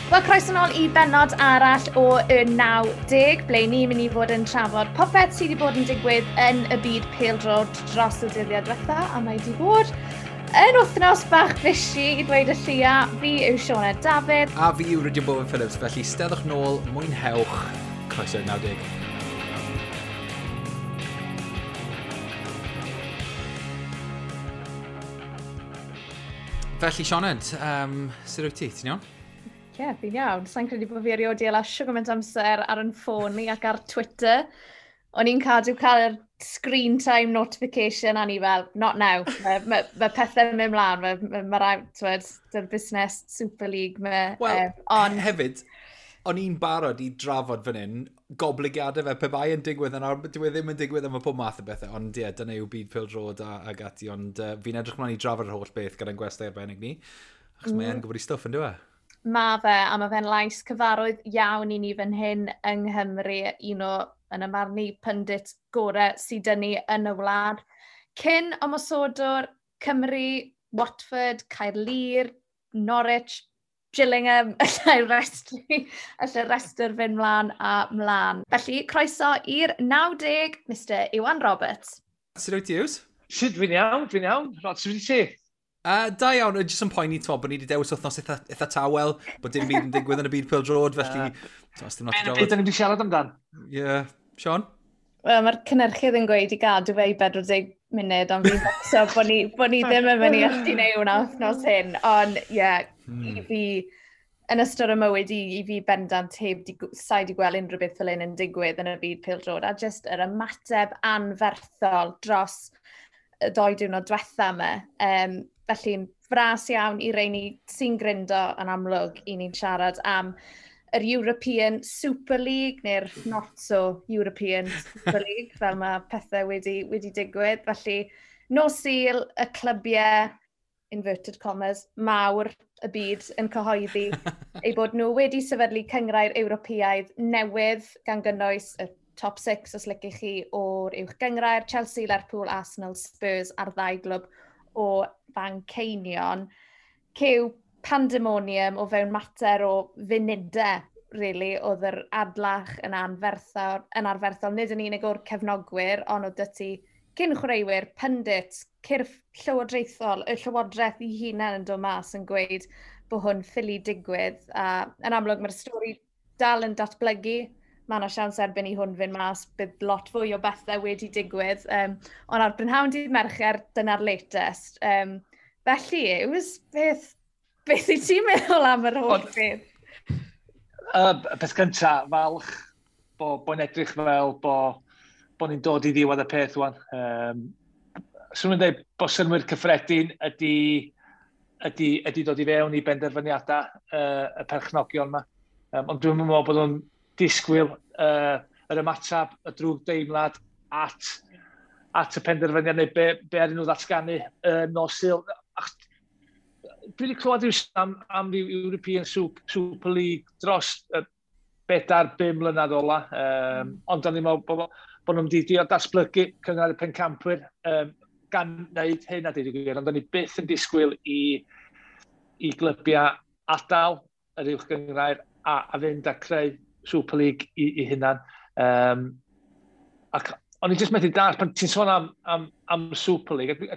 Wel, croeso nôl i bennod arall o y 90, ble ni'n mynd i fod yn trafod popeth sydd wedi bod yn digwydd yn y byd pêl-droed dros y dyddiau diwetha, a mae wedi bod yn wythnos bach fishy i ddweud y lleia. Fi yw Sioned Dafydd. A fi yw Rhydian Bowen Phillips, felly steddwch nôl, mwynhewch, croeso i'r 90. Felly, Sioned, sut wyt ti? Ti'n iawn? Ie, yeah, fi'n iawn. Sa'n credu bod fi erioed 'di hala shwt gymaint amser ar yn ffôn ni ac ar Twitter. O'n i'n cadw cael yr screen time notification a ni fel, "Not now." Mae pethau'n mynd mlaen, mae rai, t'wod, dy'r busnes Super League. Wel, on... hefyd, o'n i'n barod i drafod fan hyn, goblygiadau fe, pe bai yn digwydd, yn awr, dyw e ddim yn digwydd am y pob math o bethau, ond ie, yeah, dyna yw byd pêl-droed ag ati, ond fi'n edrych mlaen i drafod yr holl beth gyda'n gwestai arbennig ni, achos mae e'n gwybod ei stwff yn dyw e? Ma fe, a mae fe'n lais cyfarwydd iawn i ni fan hyn yng Nghymru, un o, yn y marn i, pundit gorau sydd 'da ni yn y wlad. Cyn ymosodwr Cymru, Watford, Caerlŷr, Norwich, Gillingham, allai restr fynd mlaen a mlaen. Felly, croeso i'r 90, Mr Iwan Roberts. Sut wyt ti, Yws? Sut, fi'n iawn, fi'n iawn. Rod, sut wyt ti? Da iawn, jyst yn poeni, t'mo, bod ni wedi dewis wythnos eitha tawel, bod dim byd yn digwydd yn y byd pêl-droed, felly t'mo, dim lot i drafod. Beth da ni wedi siarad amdan? Ie, yeah. Sean? Wel, mae'r cynhyrchydd yn gweud i gadw fe i 40 munud, ond fi'n becso bod ni ddim yn mynd i allu gwneud hwnna wythnos hyn. Ond, ie, yeah, i fi, yn ystod y mywyd i fi bendant heb di, sai di gweld unrhyw beth fel hyn yn digwydd yn y byd pêl-droed, a just yr ymateb anferthol dros y 2 diwrnod diwetha yma. Felly'n fras iawn i reini sy'n gryndo, yn amlwg i ni'n siarad am yr European Super League, neu'r not so European Super League, fel mae pethau wedi digwydd. Felly, nos Sul, y clybiau, inverted commas, mawr y byd yn cyhoeddi eu bod nhw wedi sefydlu cynghrair Ewropeaidd newydd, gan gynnwys y top 6, os liciwch chi, o'r uwch gynghrair, Chelsea, Lerpwl, Arsenal, Spurs a'r ddau glwb o Fanceinion. Cyw pandemonium o fewn mater o funudau, really, oedd yr adlach yn anferthol, nid yn unig o'r cefnogwyr, ond oedd 'da ti cyn chwaraewyr, pundits, cyrff llywodraethol, y llywodraeth i hunain yn dod mas yn gweud bod hwn ffili digwydd. A yn amlwg mae'r stori dal yn datblygu. Mae yna siawns erbyn i hwn fynd mas, bydd lot fwy o bethau wedi digwydd. Ond ar brynhawn dydd Mercher, dyna'r latest. Felly, it was beth i ti'n meddwl am yr holl beth? Peth cynta, falch bo'n edrych fel bo ni'n dod i ddiwedd y peth wan. Swn i'n dweud bod synnwyr cyffredin ydy dod i fewn i benderfyniadau y perchnogion yma. Ond dwi'n meddwl bod nhw'n disgwyl yr ymateb, y drwg deimlad at y penderfyniad neu be ar nhw ddatganu nos Sul. Dwi wedi clywed rhyw am ryw European Super League dros 4, 5 mlynedd ola. Ond da ni'n meddwl bod nhw'n wedi drio datblygu Cynghrair y Pencampwyr gan wneud hyn a dweud y gwir, ond da ni byth yn disgwyl i glybiau adael yr uwch gynghrair a fynd a creu Super League i hunan. Ac o'n i jyst methu dallt, pan ti'n sôn am Super League, a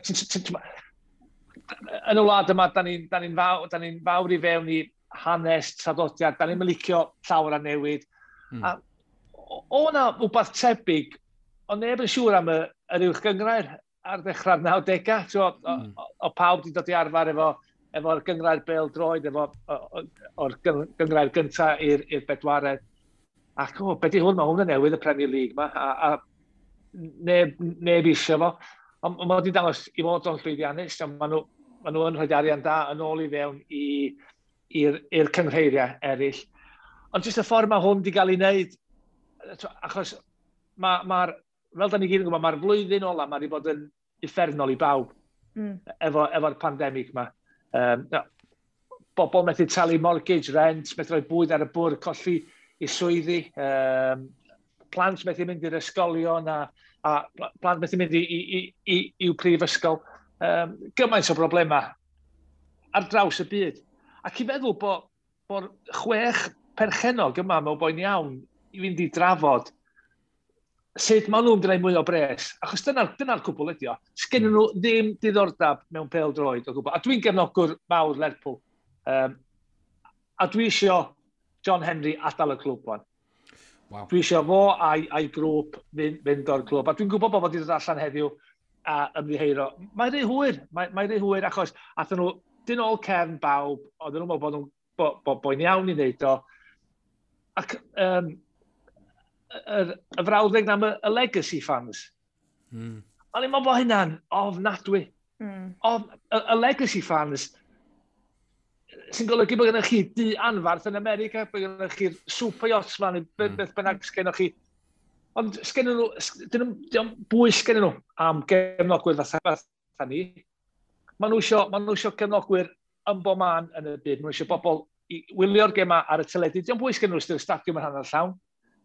yn y wlad yma, da ni fawr i fewn i hanes, traddodiad, da ni'n licio llawer a newid. A o na wbeth tebyg, ond neb yn siŵr am yr uwch gynghrair ar ddechrau'r 90au. O pawb wedi dod i arfer efo'r gynghrair bêl droed, efo, o'r gynghrair gyntaf i'r bedwaredd. Ac o, be di hwn? Mae hwn yn newydd, y Premier League ma, a neb eisiau fo. Ond mae wedi dangos i fod o'n llwyddiannus, a maen nhw yn rhoi arian da yn ôl i fewn i'r cynghreiriau eraill. Ond jyst y ffordd mae hwn wedi cael ei wneud, achos fel da ni gyd yn gwybod, mae'r flwyddyn ola mae wedi bod yn uffernol i bawb efo'r pandemig yma. No, bobl methu talu mortgage, rent, methu rhoi bwyd ar y bwrdd, colli i swyddi, plant methu mynd i'r ysgolion a plant methu mynd i'w prifysgol. Gymaint o broblemau ar draws y byd. Ac i feddwl bod bod 6 perchennog yma mewn boen iawn i fynd i drafod sut maen nhw'n gwneud mwy o bres. Achos dyna'r dyna cwbl ydi o. Sgennyn nhw ddim diddordeb mewn pêl-droed o gwbl. A dwi'n gefnogwr mawr Lerpwl. A dwi isio John Henry adael y clwb wan. Wow. Dwi eisiau fo a'i grŵp fynd o'r clwb. A dwi'n gwybod bod fo wedi dod allan heddiw a ymddiheuro. Mae'n rhy hwyr, mae rhy hwyr achos athyn nhw dyn ôl cefn bawb, oedden nhw'n meddwl bod nhw'n bo, bo, bo'n iawn i wneud o. Ac y frawddeg am y legacy fans. O'n i'n meddwl bod hynna'n ofnadwy. Y legacy fans sy'n golygu bod gennych chi du anfarth yn America, bod gennych chi'r super yachts man, beth bynnag sgennych chi. Ond sgennyn nhw, dyn nhw, bwys sgennyn nhw am gefnogwyr fatha ni. Maen nhw isio gefnogwyr yn bob man yn y byd. Maen nhw isio bobl i wylio'r gema ar y teledu. Dio'm bwys gen nhw os stadiwm yn hanner llawn.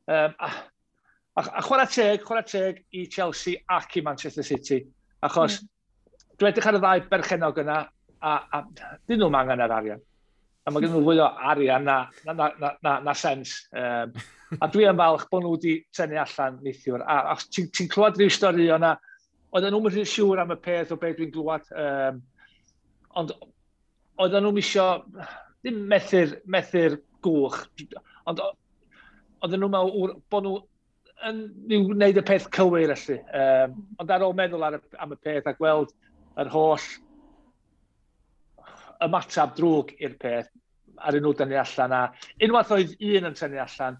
A chwarae teg i Chelsea ac i Manchester City. Achos dwi'n edrych ar y ddau berchenog yna, a dyn nhw'n angen yr arian. A mae gen nhw fwy o arian na sens. A dwi yn falch bod nhw wedi tynnu allan neithiwr. A ti'n ti clywed rhyw stori o'na, oedden nhw'n rhy siŵr am y peth o beth dwi'n glywed. Ond oedden nhw'n isio, ddim methu'r gwch, ond oedden nhw'n meddwl bod nhw yn wneud y peth cywir felly. Ond ar ôl meddwl am y peth a gweld yr holl ymateb drwg i'r peth, ar nhw dynnu allan. A unwaith oedd un yn tynnu allan,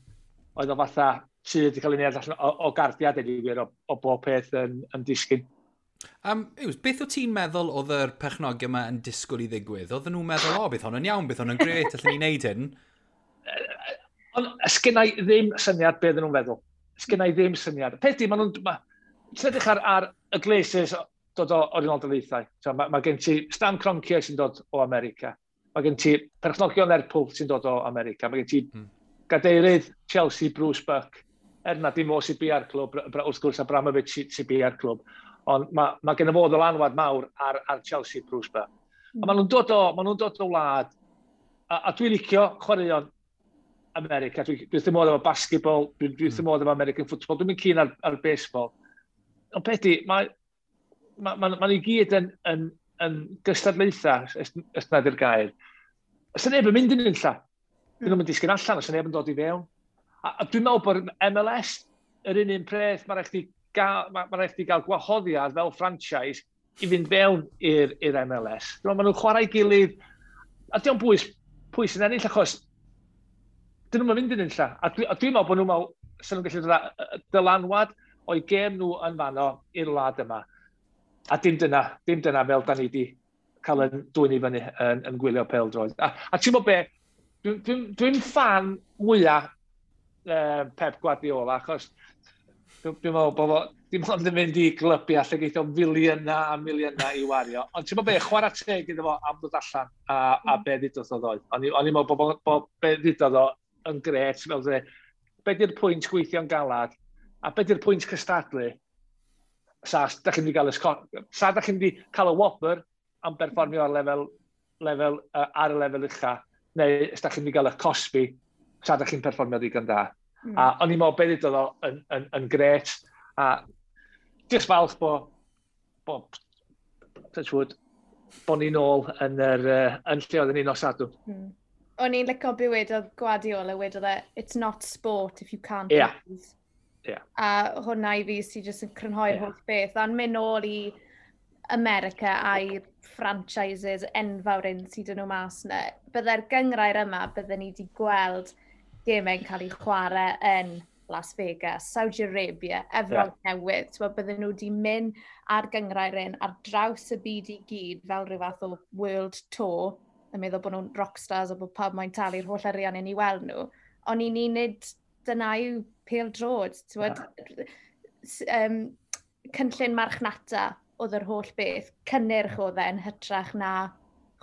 oedd o fatha sydd wedi cael ei wneud allan o gardiad i wir, o bob peth yn disgyn. Yws, beth o ti'n meddwl oedd yr perchnogion yma yn disgwyl i ddigwydd? Oedden nhw'n meddwl, "O, bydd hwn yn iawn, bydd hwn yn gret, allan ni wneud hyn"? Ond sgynna i ddim syniad beth nhw'n feddwl. Sgynna i ddim syniad. Peth di, maen nhw'n... Ti'n edrych ar y Glazers dod o'r Unol Daleithiau. So, mae gen ti Stan Kroenke sy'n dod o America. Mae gen ti perchnogion Lerpwl sy'n dod o America. Mae gen ti gadeirydd Chelsea, Bruce Buck. Er na dim o sy'n bia'r clwb, wrth gwrs Abramovich sy'n bia'r clwb. Ond mae gen i fo ddylanwad mawr ar Chelsea, Bruce Buck. A maen nhw'n dod o wlad, a dwi'n licio chwaraeon America. Dwi wrth modd efo basketball, dwi wrth modd efo American football, dwi'n mynd keen ar baseball. Ond peth di, mae ma i gyd yn gystadlaethau, os na di'r gair. Os yna neb yn mynd yn unlla, dyn nhw'n mynd disgyn allan, os yna neb yn dod i fewn. A dwi'n meddwl bod MLS yr un peth, mae'n rhaid chdi gael, ma rhaid chdi gael gwahoddiad fel franchise i fynd fewn i'r MLS. Dwi'n meddwl maen nhw'n chwarae gilydd, a dio'm bwys pwy sy'n ennill, achos dyn nhw'n mynd yn unlla. A dwi'n meddwl bod nhw'n meddwl, sy'n nhw'n gallu dod â dylanwad o'i gêm nhw yn fanno i'r wlad yma. A dim dyna fel da ni wedi cael yn dwyn i fyny yn gwylio pêl-droed. A ti'n gwybod be, dwi'n dwi fan mwyaf Pep Guardiola, achos dwi meddwl bod fo dim ond yn mynd i glybiau lle geith o filiynau a miliynau i wario. Ond ti'n meddwl be, chwarae teg iddo fo am ddod allan a be ddudodd o ddoe. O'n i'n meddwl bod be ddudodd o yn gret, fel dweud, be di'r pwynt gweithio'n galad, a be di'r pwynt cystadlu, sa da chi'n mynd i gael y sa da chi'n mynd i cael y wobr am berfformio ar y lefel ucha, neu os da chi'n mynd i gael y cosbi, sa da chi'n perfformio ddigon da. A o'n i'n meddwl be ddudodd o yn gret, a just falch bo touch wood, bo ni nôl yn lle oedden ni nos Sadwrn. O'n i'n licio be wedodd Guardiola, wedodd e, "It's not sport if you can't lose." A hwnna i fi sy'n jyst yn crynhoi'r holl beth. A'n mynd nôl i America a'i franchises enfawr un sydd yn nhw mas yna. Byddai'r gyngrair yma, bydden ni wedi gweld gemau'n cael ei chwarae yn Las Vegas, Saudi Arabia, Efrog Newydd. T'mo, bydden nhw wedi mynd ar gyngrair un ar draws y byd i gyd fel rhyw fath o world tour, yn meddwl bod nhw'n rockstars a bod pawb mae'n talu'r holl arian i ni weld nhw. Ond i ni nid dyna yw pêl-droed. T'mod, cynllun marchnata oedd yr holl beth, cynnyrch oedd e yn hytrach na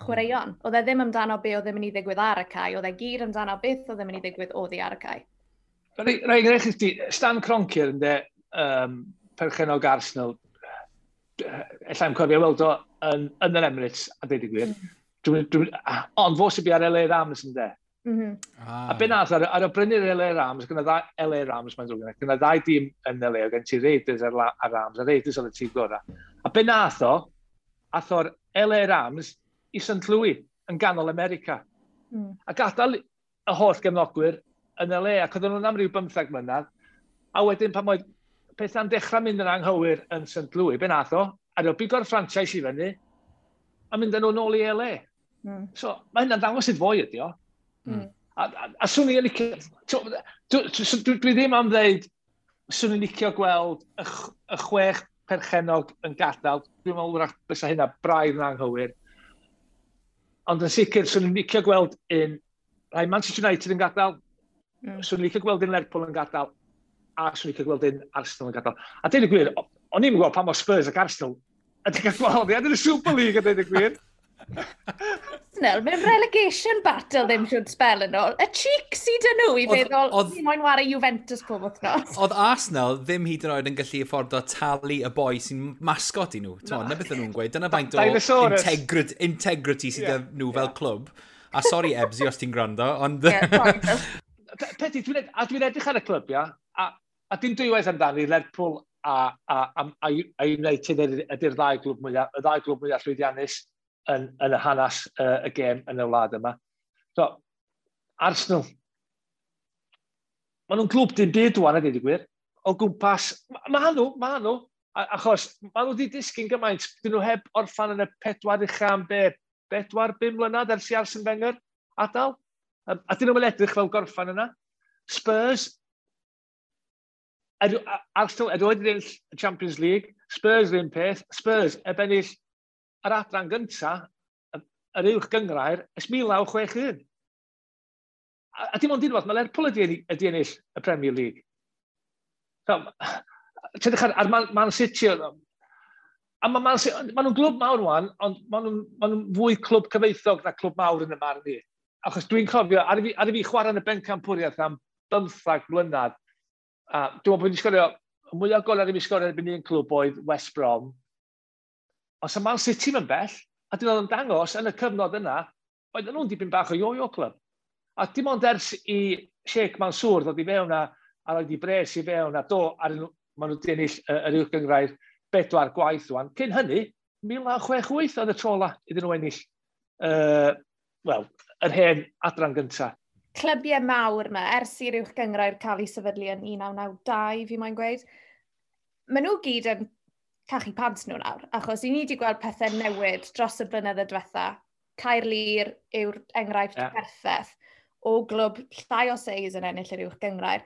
chwaraeon. Oedd e ddim amdano be oedd yn mynd i ddigwydd ar y cae, oedd e gyd amdano beth oedd yn mynd i ddigwydd oddi ar y cae. Rai, enghraifft i, Stan Kroenke ynde, perchennog Arsenal, ella i'm cofio weld o yn yr Emirates, a dweud y gwir. Ond fo sy'n bu ar LA Rams, ynde. Ah. A be nath, ar y brynu'r LA Rams, gyda ddau LA Rams, mae'n ddrwg, gyda ddau dîm yn LA, oedd gen ti Raiders a'r, a Rams, a Raiders oedd y tîm gorau. A be nath o, ath o'r LA Rams i St Louis, yn ganol America. A gadael y holl gefnogwyr yn LA, ac oedden nhw'n am ryw 15 mlynedd, a wedyn pan oedd pethau'n dechrau mynd yn anghywir yn St Louis, be nath o, a o bigo'r franchise i fyny, a mynd â nhw nôl i LA. So, mae hynna'n dangos sut foi ydi o. A swn i'n licio... Dwi ddim am ddeud, swn i'n licio gweld y 6 perchennog yn gadael. Dwi'n meddwl wrach bysa hynna braidd yn anghywir. Ond yn sicr, swn i'n licio gweld un... Rhai Manchester United yn gadael, swn i'n licio gweld un Lerpwl yn gadael, a swn i'n licio gweld un Arsenal yn gadael. A deud y gwir, o'n i'n gweld pa mor Spurs ac Arsenal ydy cael gwahoddiad yn y Super League, a deud y gwir. Arsenal, mewn relegation battle ddim siwr spel yn ôl. Y cheek sydd dyn nhw i feddwl, ni moyn wario Juventus pob wythnos. Oedd Arsenal ddim hyd yn oed yn gallu affordo talu y boi sy'n mascot i nhw. Na beth nhw'n gweud. Dyna faint o integrity sydd yeah. nhw fel clwb. A sorry Ebsi os ti'n gwrando, ond... Yeah, Peti, dwi'n edrych ar y clybiau, a dim dwywaith amdani, Lerpwl a United ydy'r ddau glwb mwyaf, y ddau glwb mwyaf llwyddiannus yn y hanes y gêm yn y wlad yma. So, Arsenal, maen nhw'n glwb dim byd wan, a dweud y gwir. O gwmpas, ma nhw, achos maen nhw wedi disgyn gymaint, dyn nhw heb orffan yn y 4 ucha am be, 4-5 mlynedd ers i Arsene Wenger adael. A dyn nhw'n edrych fel gorffan yna. Spurs, Arsenal erioed wedi ennill y Champions League, Spurs yr un peth, Spurs heb ennill yr adran gynta, yr uwch gynghrair, ers 1961. A dim ond unwaith, mae Lerpwl ydi ennill y Premier League. So, ti'n edrych ar Man City, a mae Man City, maen nhw'n glwb mawr wan, ond maen nhw'n fwy clwb cyfoethog na clwb mawr yn y marn i. Achos dwi'n cofio, ar i fi chwarae yn y bencampwriaeth am 15 mlynedd, a dwi'n meddwl bod wedi sgorio, y mwyaf gol ar i fi sgorio erbyn un clwb oedd West Brom. Ond sa Man City yn bell, a dyn nhw'n dangos yn y cyfnod yna, oedden nhw'n dipyn bach o yo-yo club. A dim ond ers i Sheikh Mansour ddod i fewn a roed i bres i fewn a do, ar maen nhw wedi ennill yr uwch gynghrair 4 gwaith wan. Cyn hynny, 1968 oedd y tro ola iddyn nhw ennill wel, yr hen adran gyntaf. Clybiau mawr yma, ers i'r uwch gynghrair cael ei sefydlu yn 1992, fi moyn gweud, maen nhw gyd yn cachu pants nhw nawr, achos i ni wedi gweld pethau newid dros y blynyddoedd diwetha. Caerlŷr yw'r enghraifft perffaith o glwb llai o seis yn ennill yr uwch gynghrair.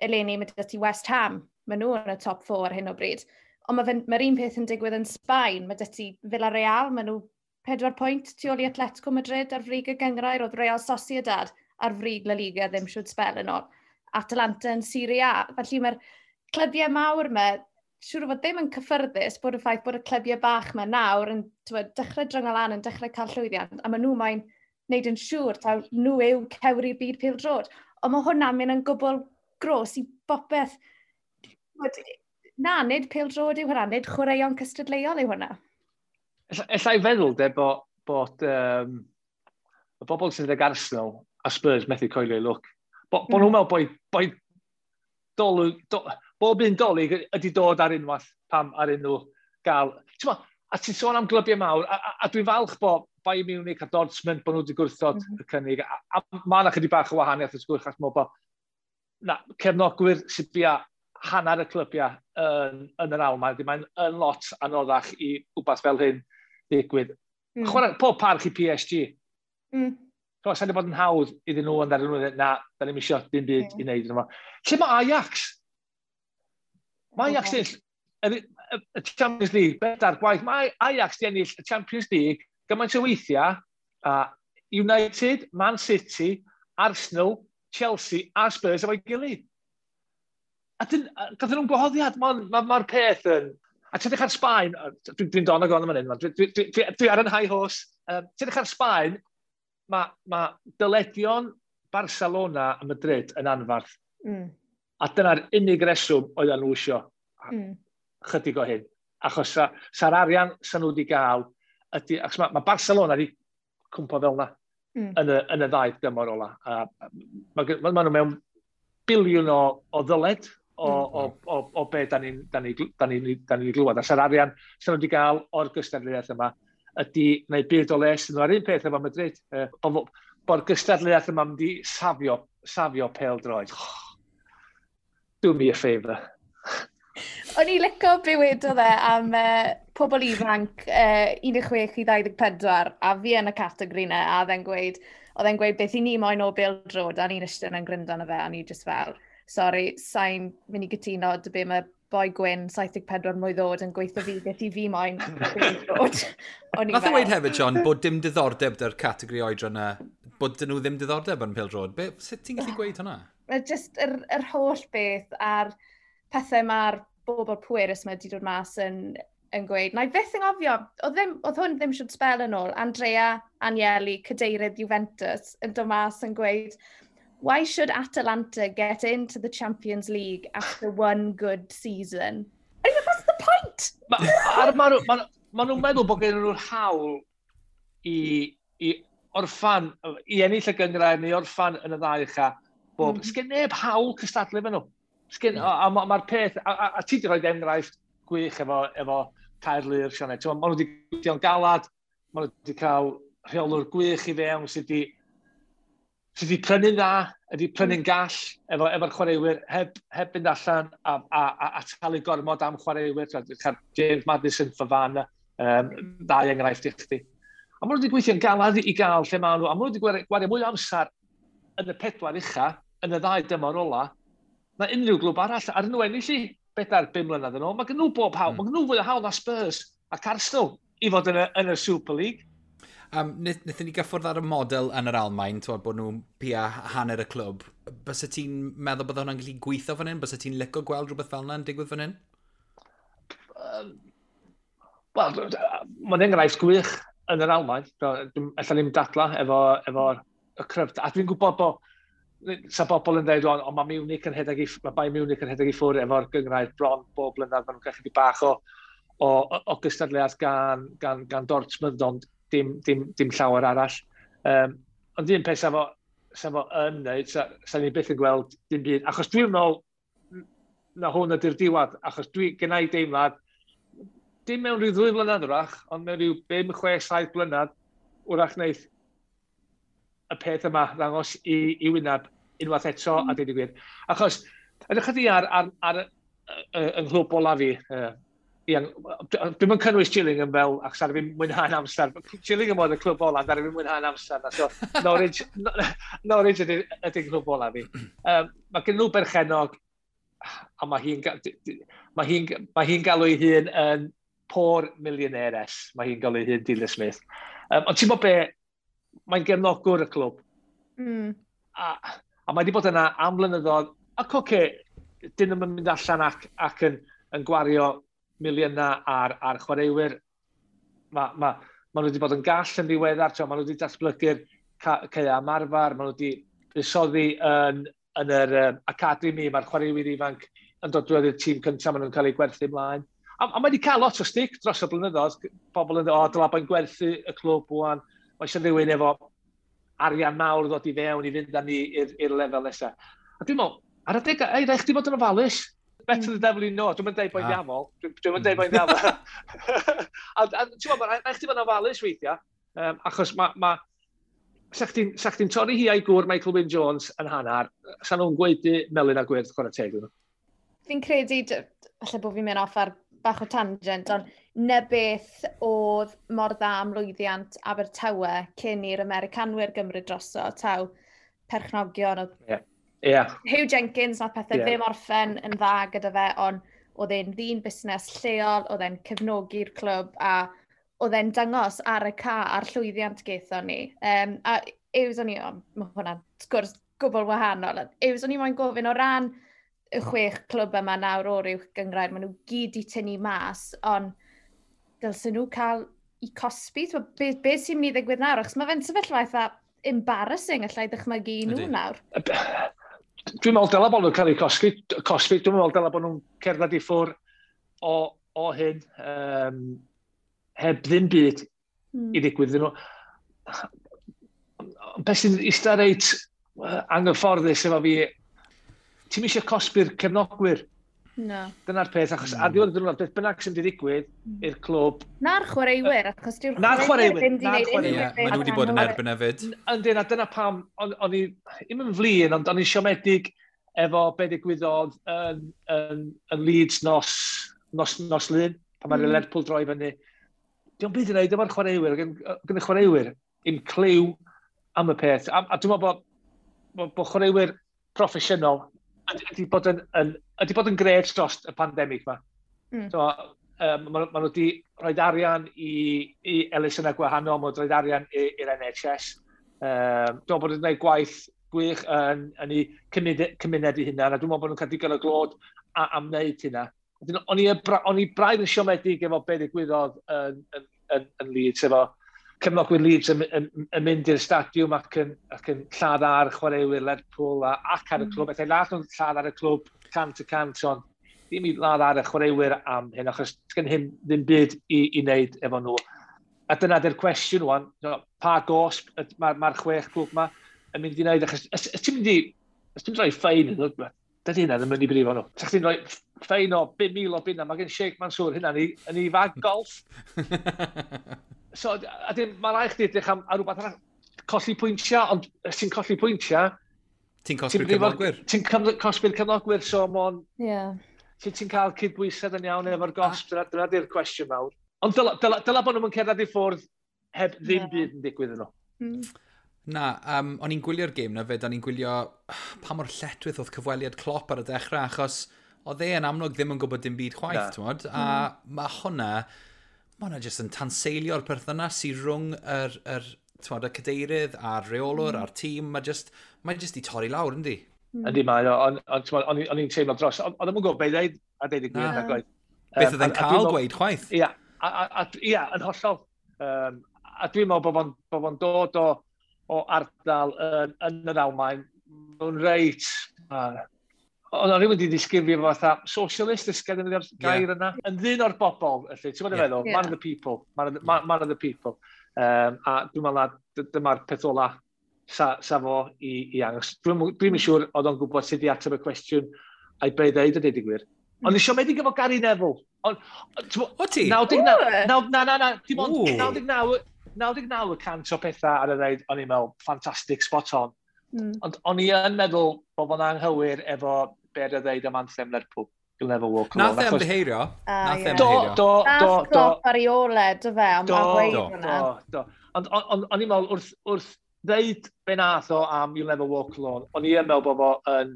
Eleni mae gyda ti West Ham, maen nhw yn y top 4 ar hyn o bryd. Ond mae'r un peth yn digwydd yn Sbaen, mae gyda ti Villarreal, maen nhw 4 pwynt tu ôl i Atletico Madrid ar frig y gynghrair, oedd Real Sociedad ar frig La Liga ddim siwt sbel yn ôl. Atalanta yn Serie A. Felly mae'r clybiau mawr yma, siŵr o fod ddim yn cyffyrddus bod y ffaith bod y clybiau bach yma nawr yn dechrau dringo lan, yn dechrau cael llwyddiant, a maen nhw mae'n wneud yn siŵr taw nhw yw cewri'r byd pêl-droed. Ond mae hwnna'n mynd yn gwbl gros i bopeth. Na, nid pêl-droed yw hwnna, nid chwaraeon cystadleuol yw hwnna. Ella i feddwl de bod y bobl sydd ag Arsenal a Spurs methu coelio i lwc. Bo nhw'n meddwl bod bob un dolyg ydy dod ar unwaith pam ar unrhyw gael. A ti'n sôn am glybiau mawr, a dwi'n falch bod Bayern Munich a Dortmund bod nhw wedi gwrthod y cynnig. A mae yna chydig bach o wahaniaeth wrth gwrs, achos bod na, cefnogwyr sydd bia hanner y clybiau yn yr Almaen, mae'n yn lot anoddach i wbath fel hyn digwydd. Chwarae, pob parch i PSG. Sa'n bod yn hawdd iddyn nhw ond ar nhw, na, da ni'n isio dim byd i wneud. Lle mae Ajax? Mae Ajax ennill y Champions League, bedair gwaith. Mae Ajax di ennill y Champions League gymaint o weithiau, United, Man City, Arsenal, Chelsea a Spurs efo'i gilydd. A gathon nhw'n gwahoddiad, mae'r peth yn... A ti'n edrych ar Sbaen, dwi'n don ag on yma hyn, dwi ar yn high horse. Ti'n edrych ar Sbaen, mae dyledion Barcelona a Madrid yn anfarth. A dyna'r unig reswm oedden nhw isio chydig o hyn. Achos sa'r arian sa nhw wedi gael, ydy, achos mae Barcelona wedi cwmpo fel yna. yn y ddau dymor ola. Ma nhw mewn biliwn o ddyled o be da ni'n da ni glywed. A sa'r arian sy'n nhw wedi gael o'r gystadleuaeth yma ydy gwneud byd o les nhw. A'r un peth efo Madrid, bod gystadleuaeth yma mynd i safio pêl-droed. Do me a favour. O'n i licio be wedodd e am pobl ifanc 16 i 24, a fi yn y categori 'na, a oedd e'n gweud beth i ni moyn o bêl-droed, a ni'n eistedd yn gryndo arno fe, a ni just fel, "Sorry, sa'n mynd i gytuno dy be mae boi gwyn 74 mlwydd oed yn gweithio fi beth i fi moyn o bêl-droed." O'n i Nath e weud hefyd, John, bod dim diddordeb dy'r categori oedran yna, bod dyn nhw ddim diddordeb yn pêl-droed. Sut ti'n gallu gweud hwnna? Mae just yr holl beth a'r pethau mae'r bobl pwerus mae wedi dod mas yn gweud. Na i fyth yn gofio, oedd hwn ddim siwt sbel yn ôl, Andrea Agnelli, cadeirydd Juventus, yn dod mas yn gweud, "Why should Atalanta get into the Champions League after one good season?" I mean, what's the point? Ma nhw'n meddwl bod gen nhw'r hawl i orffan, i ennill y gynghrair neu orffan yn y ddau ucha. Bob. Sgen neb hawl cystadlu efo nhw. Sgen, a mae'r peth, a ti wedi rhoi enghraifft gwych efo Caerlŷr, Sioned. Ma' nhw wedi gweithio'n galad, ma' nhw wedi cael rheolwr gwych i fewn sydd wedi prynu'n dda, wedi prynu'n gall efo'r chwaraewyr, heb fynd allan a talu gormod am chwaraewyr. Cael James Maddison, Fofana, ddau enghraifft i chdi. A maen nhw wedi gweithio'n galad i gael lle maen nhw, a maen nhw wedi gwario mwy o amser yn y pedwar ucha, yn y ddau dymor ola, na unrhyw glwb arall. Ar nhw ennill i 4, 5 mlynedd yn ôl, mae gen nhw bob hawl, mae gen nhw fwy o hawl na Spurs ac Arsenal i fod yn y Super League. Wnaethon ni gyffwrdd ar y model yn yr Almain, twod, bod nhw'n pia hanner y clwb. Bysa ti'n meddwl bod hwnna'n gallu gweithio fan hyn? Bysa ti'n licio gweld rhywbeth fel yna'n digwydd fan hyn? Wel, mae'n enghraifft gwych yn yr Almain. Alla ddim dadla efo y cryfder. A dwi'n gwybod bod sa bobl yn dweud, ond mae Bayern Munich yn rhedeg i ffwrdd efo'r gynghrair bron bob blynedd. Maen nhw'n cael chydig bach o gystadleuaeth gan Dortmund, ond dim llawer arall. Ond un peth sa fo yn neud, sa ni byth yn gweld dim byd. Achos dwi'n meddwl na hwn ydy'r diwedd, achos dwi gynna i deimlad, dim mewn rhyw 2 flynedd wrach, ond mewn rhyw 5, 6, 7 blynedd, wrach wneith y peth yma ddangos i wyneb unwaith eto, a dweud y gwir. Achos, ydych chi ar yng nghlwb ola fi, Ian, dwi'n yn cynnwys Gillingham fel, achos ar fi mwynhau'n amser. Gillingham oedd y clwb ola, ar fi mwynhau'n amser. Na, so, Norwich ydy clwb ola fi. Mae gen nhw berchenog, a mae hi'n galw ei hun yn poor millionaires. Mae hi'n galw ei hun Delia Smith. Ond ti'n bod be, mae'n gefnogwr y clwb. A mae wedi bod yna am blynyddoedd. Ac oce, okay, dyn nhw'n mynd allan ac yn gwario miliynau ar chwaraewyr. Ma nhw wedi bod yn gall yn ddiweddar, ma nhw wedi datblygu'r caeau ymarfer, ma nhw wedi buddsoddi yn yr academy, mae'r chwaraewyr ifanc yn dod drwy'r tîm cyntaf, maen nhw'n cael eu gwerthu ymlaen. A mae wedi cael lot o stick dros y blynyddoedd. Pobl yn dweud, "O, dyla bo'n gwerthu y clwb wan. Mae eisiau rhywun efo arian mawr ddod i fewn i fynd â ni i'r lefel nesaf." A dwi'n meddwl, ar adeg, ei, rhaid chdi fod yn ofalus. Better the devil you know. Dwi'n mynd deud boi'n ddiafol. Dwi'n mynd deud boi'n ddiafol. A ti'n meddwl, rhaid chdi fod yn ofalus weithiau. Achos sa chdi'n torri hi a'i gŵr Michael Wynne Jones yn hanner, sa nhw'n gweud melyn a gwyrdd, chwarae teg nhw. Fi'n credu, falle bod fi'n mynd off ar bach o tangent, ond na beth oedd mor dda am lwyddiant Abertawe cyn i'r Americanwyr gymryd droso, taw perchnogion oedd Huw Jenkins, nath pethau ddim orffen yn dda gyda fe, ond oedd e'n ddyn busnes lleol, oedd e'n cefnogi'r clwb a oedd e'n dangos ar y ca a'r llwyddiant gaethon ni. A Yws o'n i, oh, mae hwnna'n sgwrs gwbl wahanol, Yws o'n i moyn gofyn o ran y chwech clwb yma nawr o'r uwch gynghrair, maen nhw gyd i tynnu mas, ond dylsyn nhw cael i cosbi? Be sy'n mynd i ddigwydd nawr? Achos mae fe'n sefyllfa eitha embarrassing allai ddychmygu i nhw nawr. Dwi'n meddwl dylai bod nhw'n cael eu cosbi. Dwi'n meddwl dylai bod nhw'n cerdded i ffwrdd o hyn heb ddim byd i ddigwydd iddyn nhw. Beth sy'n eistedd reit anghyfforddus efo fi, ti'n eisiau cosbi'r cefnogwyr. No. Dyna'r peth, achos ar ddiwedd y diwrnod, beth bynnag sy'n digwydd i'r clwb. Na'r chwaraewyr, achos dyw'r chwaraewyr ddim wedi gwneud unrhyw beth. Maen nhw wedi bod yn erbyn hefyd. Yndyn, a dyna pam, o'n i, ddim yn flin, ond o'n i'n siomedig efo be ddigwyddodd yn Leeds nos Lun, pan mae'r Lerpwl droi fyny. Dio'm byd yn neud efo'r chwaraewyr, gen y chwaraewyr i'm cliw am y peth. A dwi'n meddwl bod chwaraewyr proffesiynol ydy bod yn grêt dros y pandemig yma. So, maen nhw wedi rhoi arian i elusennau gwahanol, maen nhw wedi rhoi arian i'r NHS. Dwi'n meddwl bod nhw'n gwneud gwaith gwych yn eu cymuned eu hunan, a dwi'n meddwl bod nhw'n cael digon o glod am wneud hynna. O'n i braidd yn siomedig efo be ddigwyddodd yn Leeds, efo cefnogwyr Leeds yn mynd i'r stadiwm ac yn lladd ar chwaraewyr Lerpwl ac ar y clwb. Efallai ladd nhw'n lladd ar y clwb 100%, ond ddim i ladd ar y chwaraewyr am hyn, achos gen hyn ddim byd i wneud efo nhw. A dyna di'r cwestiwn wan, pa gosb mae'r 6 clwb yma yn mynd i wneud, achos os ti'n mynd i roi ffein, dydy hynna ddim yn mynd i brifo nhw. Sa chdi'n rhoi ffein o 5,000 o bunna, mae gen Sheikh Mansour hynna yn ei fag golf. So, a dim, mae rhaid chdi edrych am rhywbeth arall, colli pwyntiau, ond os ti'n colli pwyntiau... Ti'n cosbi'r cefnogwyr. Ti'n cosbi'r cefnogwyr, so mon... Yeah. Ti'n cael cydbwysedd yn iawn efo'r gosb, dyna di'r cwestiwn mawr. Ond dyla bod nhw'n cerdded i ffwrdd heb ddim byd yn digwydd yno. Na, o'n i'n gwylio'r gêm na fyd, o'n i'n gwylio pa mor lletchwith oedd cyfweliad Klopp ar y dechrau, achos oedd e yn amlwg ddim yn gwybod dim byd chwaith, t'mod? A mae hwnna jyst yn tanseilio'r perthynas sydd rhwng t'mod, y cadeirydd a'r reolwr a'r tîm. Mae jyst i torri lawr, yndi? Yndi mae, ond o'n i'n teimlo dros. Ond o'n i'n gwybod beth i ddeud, a deud y gwir, na gwaith. Beth oedd e'n cael gweud chwaith? Ia, yn hollol. A dwi'n meddwl bod fo'n dod o ardal yn yr Almaen, nhw'n reit... Ond o'n rhywun wedi disgrifio fo fatha socialist, ysgedd yn gair yna. Yn ddyn o'r bobl, felly, ti'n gwybod feddwl? Man of the people. Man of the people. A dwi'n meddwl na dyma'r peth ola sa fo i angos. Dwi'n siŵr oedd o'n gwybod sut i ateb y cwestiwn a'i be ddeud y deud y gwir. Ond i siomedig efo Gary Neville. O ti? 99, na, dim ond 99% o pethau ar y ddeud, o'n i'n meddwl, fantastic, spot on. Ond o'n i yn meddwl bod fo'n anghywir efo be ar y ddeud am anthem Lerpwl. You'll never walk alone. Nath e ymddiheirio. Do. Nath Klopp ar ei ôl e, do fe, am weid hwnna. Do. Ond o'n i'n meddwl, wrth ddeud be nath o am You'll never walk alone, o'n i yn meddwl bod fo yn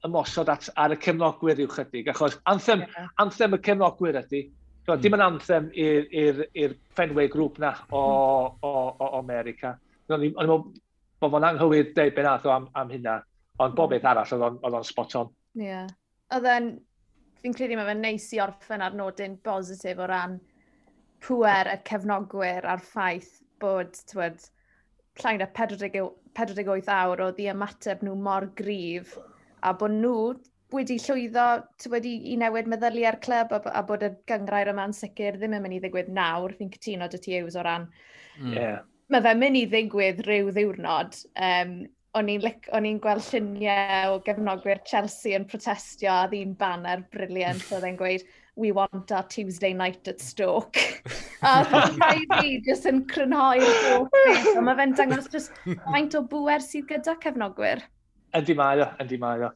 ymosod ar y cefnogwyr rhyw chydig, achos anthem y cefnogwyr ydy. Dim yn anthem i'r Fenway Group na o America. O'n i'n meddwl bod fo'n anghywir deud be nath o am hynna, ond bob beth arall oedd o'n spot on. Ie. Oedd e'n, fi'n credu mae fe'n neis i orffen ar nodyn bositif o ran pŵer y cefnogwyr a'r ffaith bod, t'wod, llai na 48 awr oedd i ymateb nhw mor gryf a bod nhw wedi llwyddo t'wod, i newid meddyliau'r clwb a bod y gynghrair yma'n sicr ddim yn mynd i ddigwydd nawr. Fi'n cytuno dy ti Hughes o ran. Yeah. Mae fe'n mynd i ddigwydd rhyw ddiwrnod. O'n i'n gweld lluniau o gefnogwyr Chelsea yn protestio a ddyn banner brilliant oedd e'n gweud, "We want our Tuesday night at Stoke." A rhaid fi jyst yn crynhoi'r holl beth. Ond mae fe'n dangos jyst faint o bŵer sydd gyda cefnogwyr. Yndi mae o, yndi mae o.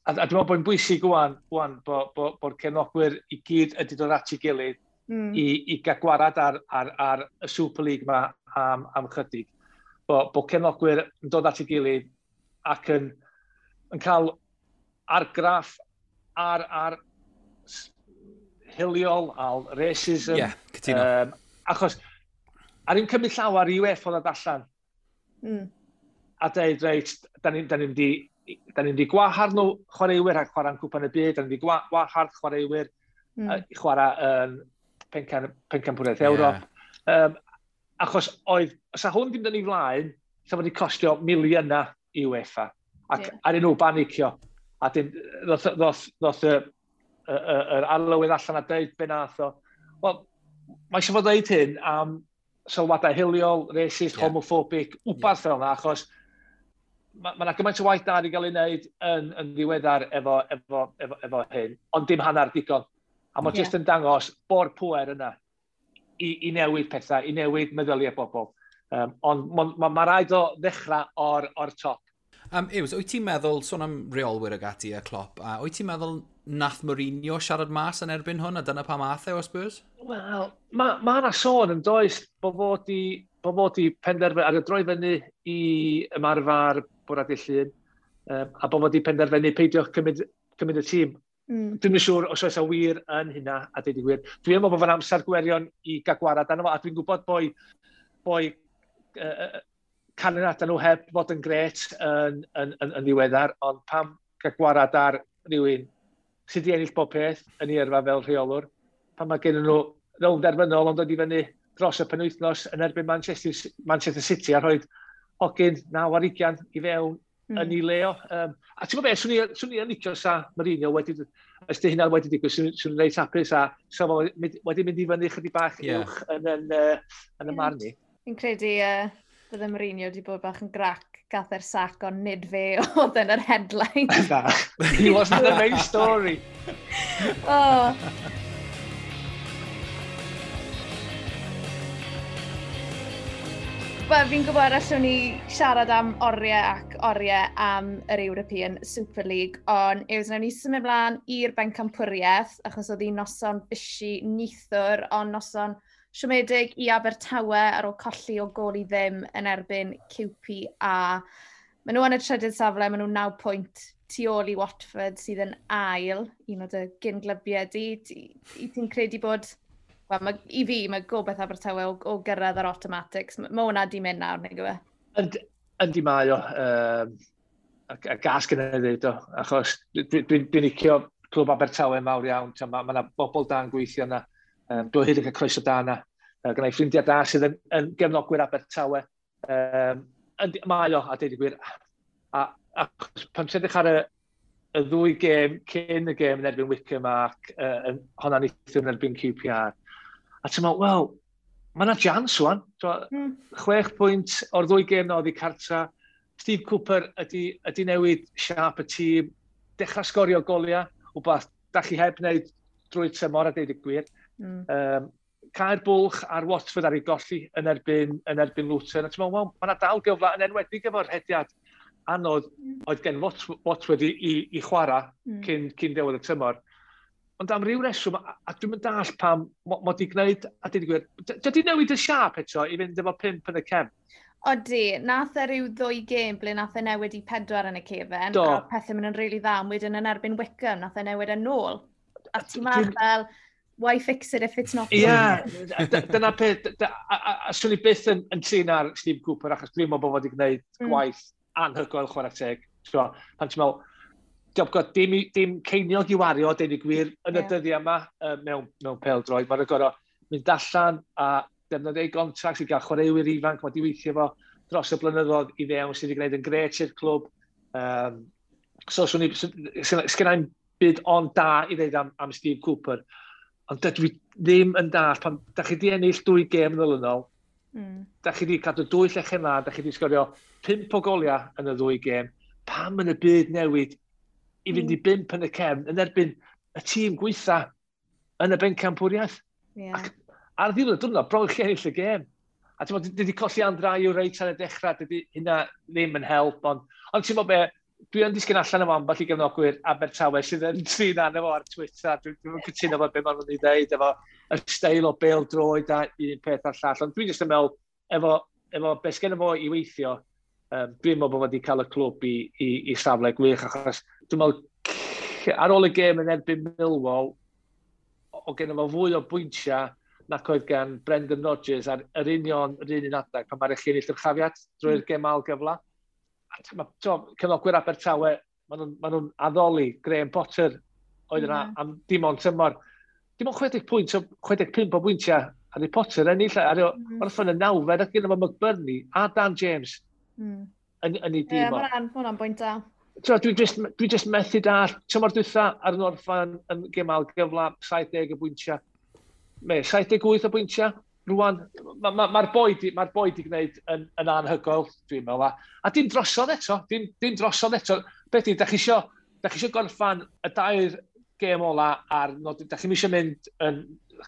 A dwi'n meddwl bod yn bwysig wan bod cefnogwyr i gyd ydi dod at ei gilydd i gael gwarad ar y Super League ma am chydig. Bod cefnogwyr yn dod at ei gilydd ac yn cael argraff ar hiliol, ar racism. Ie, cytuno. Achos, ar un cymryd llawer i UEFA ddod allan a dweud, reit, da ni'n di gwahardd nhw chwaraewyr ac chwarae'n Cwpan y Byd, da ni'n di gwahardd chwaraewyr i chwarae yn Pencampwriaeth Ewrop. Achos oedd, os a hwn ddim yn ei flaen, sa wedi costio miliynau i UEFA. Ac ar nhw banicio. A dyn, ddoth yr arlywydd allan a deud be nath o. Wel, mae eisiau fod dweud hyn am sylwadau hiliol, racist, homophobic, wbath fel yna, achos mae yna gymaint o waith da wedi cael ei wneud yn ddiweddar efo hyn, ond dim hanner digon. A mae jyst yn dangos bo'r pwer yna i newid pethau, i newid meddyliau bobl. Ond ma rhaid o ddechrau o'r top. Yws, wyt ti'n meddwl, sôn am reolwyr ag ati a Klopp, a wyt ti'n meddwl nath Mourinho siarad mas yn erbyn hwn, a dyna pam ath e o Spurs? Wel, ma yna sôn yn does bod fod i penderfynu, ar y droi fyny i ymarfer bwrdd dydd Llun, a bod fod i penderfynu peidio cymryd y tîm. Dwi'm yn siŵr os oes a wir yn hynna, a deud y gwir. Dwi'n meddwl bod fo'n amser gwirion i gael gwarad arno fo, a dwi'n gwybod boi canlyniadau nhw heb fod yn gret yn ddiweddar, ond pam gael gwarad ar rhywun sydd wedi ennill bob peth yn ei yrfa fel rheolwr, pan mae gen nhw rownd derfynol ond dod i fyny dros y penwythnos yn erbyn Manchester City a rhoi hogyn 9 ar 20 i fewn yn ei le o. A ti'n gwybod beth, swn i yn licio sa Mourinho wedi, os di hynna wedi digwydd, swn i'n reit hapus a sa fo wedi mynd i fyny chydig bach uwch yn y marn i. Fi'n credu bydde Mourinho wedi bod bach yn grac gath e'r sac, ond nid fe oedd yn yr headline. Na, he wasn't the main story. Oh. Wel, fi'n gwybod allwn ni siarad am oriau ac oriau am yr European Super League, ond Yws, nawn ni symud mlaen i'r bencampwriaeth, achos oedd hi'n noson busy neithiwr, ond noson siomedig i Abertawe ar ôl colli o gôl i ddim yn erbyn QPR. Maen nhw yn y trydydd safle, maen nhw 9 pwynt tu ôl i Watford sydd yn ail, un o dy gyn-glybiau di. I ti'n credu bod, wel, i fi, mae gobeith Abertawe o gyrraedd yr automatics. Mae hwnna di mynd nawr, nag yw e? Yndi mae o. A gas gyda i ddweud o. Achos dwi'n licio clwb Abertawe mawr iawn. Mae yna bobl da'n gweithio yna. Dwi hyd yn cael croeso da yna. Gynna i ffrindiau da sydd yn gefnogwyr Abertawe. Yndi, mae o, a deud y gwir. A pan ti'n edrych ar y ddwy gêm cyn y gêm yn erbyn Wycombe ac honna neithiwr yn erbyn QPR. A ti'n meddwl, wel, mae yna chance wan. 6 pwynt o'r ddwy gêm na oedd i cartra. Steve Cooper ydy newid siâp y tîm, dechrau sgorio goliau, wbath da chi heb wneud drwy'r tymor a deud y gwir. Cau'r bwlch ar Watford ar ei golli yn erbyn Luton. A ti'n meddwl, wel, mae yna dal gyfle yn enwedig efo'r rhediad anodd oedd gen Watford i chwarae cyn diwedd y tymor. Ond am ryw reswm, a dwi'n mynd dall pam mod i gwneud, a deud y gwir, dydy newid y siâp eto i fynd efo 5 yn y cefn? Odi, nath e ryw ddwy gêm ble nath e newid i 4 yn y cefen, a pethau mynd yn rili dda, ond wedyn yn erbyn Wycombe, nath e newid yn ôl. A ti'n meddwl fel, why fix it if it's not Ie, yeah, dyna peth, a swn i byth yn trin ar Steve Cooper, achos dwi'n meddwl bod wedi gwneud gwaith anhygoel, chwarae teg. So, pan ti'n meddwl, diolch god, dim ceiniog i wario, deud y gwir, yn y dyddiau yma mewn pêl-droed. Mae'n gorfod mynd allan a defnyddio ei contract i gael chwaraewyr ifanc, mae wedi weithio fo dros y blynyddoedd i fewn sydd wedi gwneud yn gret i'r clwb. So, swn i, sgynna i'm byd ond da i ddeud am Steve Cooper. Ond dydw i ddim yn dall, pan da chi wedi ennill dwy gêm yn olynol, da chi wedi cadw dwy llechen lân, da chi wedi sgorio 5 o goliau yn y ddwy gêm, pam yn y byd newid i fynd i 5 yn y cefn yn erbyn y tîm gweitha yn y bencampwriaeth? Ac ar ddiwedd y diwrnod, bron chi ennill y gêm. A ti'n meddwl, dydy colli Andre Ayew reit ar y dechrau, dydy hynna ddim yn help, ond ti'n meddwl be, dwi yn disgyn allan efo ambell i gefnogwyr Abertawe sydd yn trin arno fo ar Twitter. Dwi'n cytuno efo be maen nhw'n ei ddeud, efo y steil o bêl droed a un peth a'r llall. Ond dwi'n jyst yn meddwl, efo beth sgen fo i weithio, dwi'n meddwl bod wedi cael y clwb i safle gwych, achos dwi'n meddwl, ar ôl y gêm yn erbyn Millwall, o gen fo fwy o bwyntiau nac oedd gan Brendan Rodgers ar yr union yr un un adeg pan mae'r chi ennill yr chafiad drwy'r gêm ail gyfle. A cefnogwyr Abertawe, ma nhw'n addoli Graham Potter oedd yna am dim ond tymor. Dim ond 60 pwynt, 65 o bwyntiau ar ei Potter ennill, ar orffen y nawfed ac gyda fo McBurney a Dan James yn ei dîm. Ie, ma hwnna'n bwynt da. Dwi just methu dall. Tymor dwytha ar yn orffan yn gêm ail gyfle, 70 o bwyntiau. Me, 78 o bwyntiau. Rwan, mae'r ma, ma boi di, ma boi di gwneud yn anhygoel, dwi'n meddwl. A dim drosodd eto, dim drosodd eto. Beth di, da chi isio gorffan y dair gêm ola ar nodyn, da chi'n isio mynd yn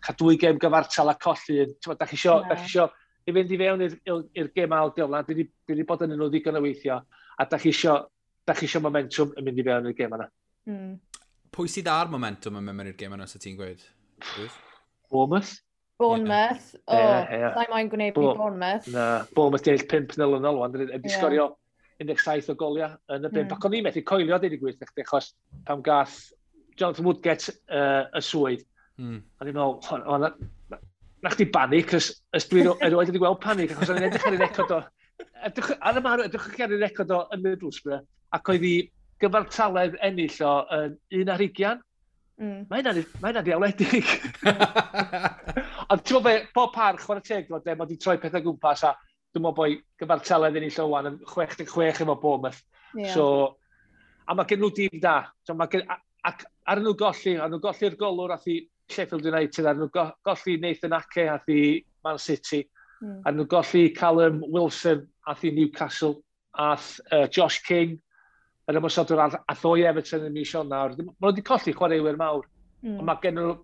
cael dwy gêm gyfartal a colli un. Da chi isio, da chi isio i fynd i fewn i'r gêm ail gyfle, dwi wedi bod yn nhw ddigon o weithio, a da chi isio momentum yn mynd i fewn i'r gêm yna. Mm. Pwy sydd ar momentum yn mynd mewn i'r gêm yna, sa ti'n gweud? Bournemouth. Bournemouth. O, yeah. Sa'i moyn gwneud i Bournemouth. Na, Bournemouth di ennill 5-0 yn ôl, wedi sgorio 17 o goliau yn y bimp. Ac o'n i'n methu coelio, dweud y gwir, achos pam gath Jonathan Woodgate y swydd. O'n i'n meddwl, na chdi banic, ys dwi erioed wedi gweld panic, achos o'n i'n edrych ar ei record o, ar y marw, edrych ar ei record o yn Middlesbrough, ac oedd hi gyfartaledd ennill o yn 1-20. Mae hynna'n ddiawledig. Ond ti'n meddwl be, bob parch, chwarae teg, mae wedi troi pethau gwmpas, a dwi'n meddwl bod gyfartaledd ennill o wan yn 66 efo Bournemouth. Yeah. So, a mae gen nhw dîm da. So, mae gen, ac ar nhw golli, ar nhw golli'r golwr ath i Sheffield United, ar nhw golli Nathan Ake ath i Man City, ar nhw golli Callum Wilson ath i Newcastle, ath Josh King, yr ymosodwr ath o i Everton yn mis Ionawr. Maen nhw wedi colli chwaraewyr mawr. Ond mae gen nhw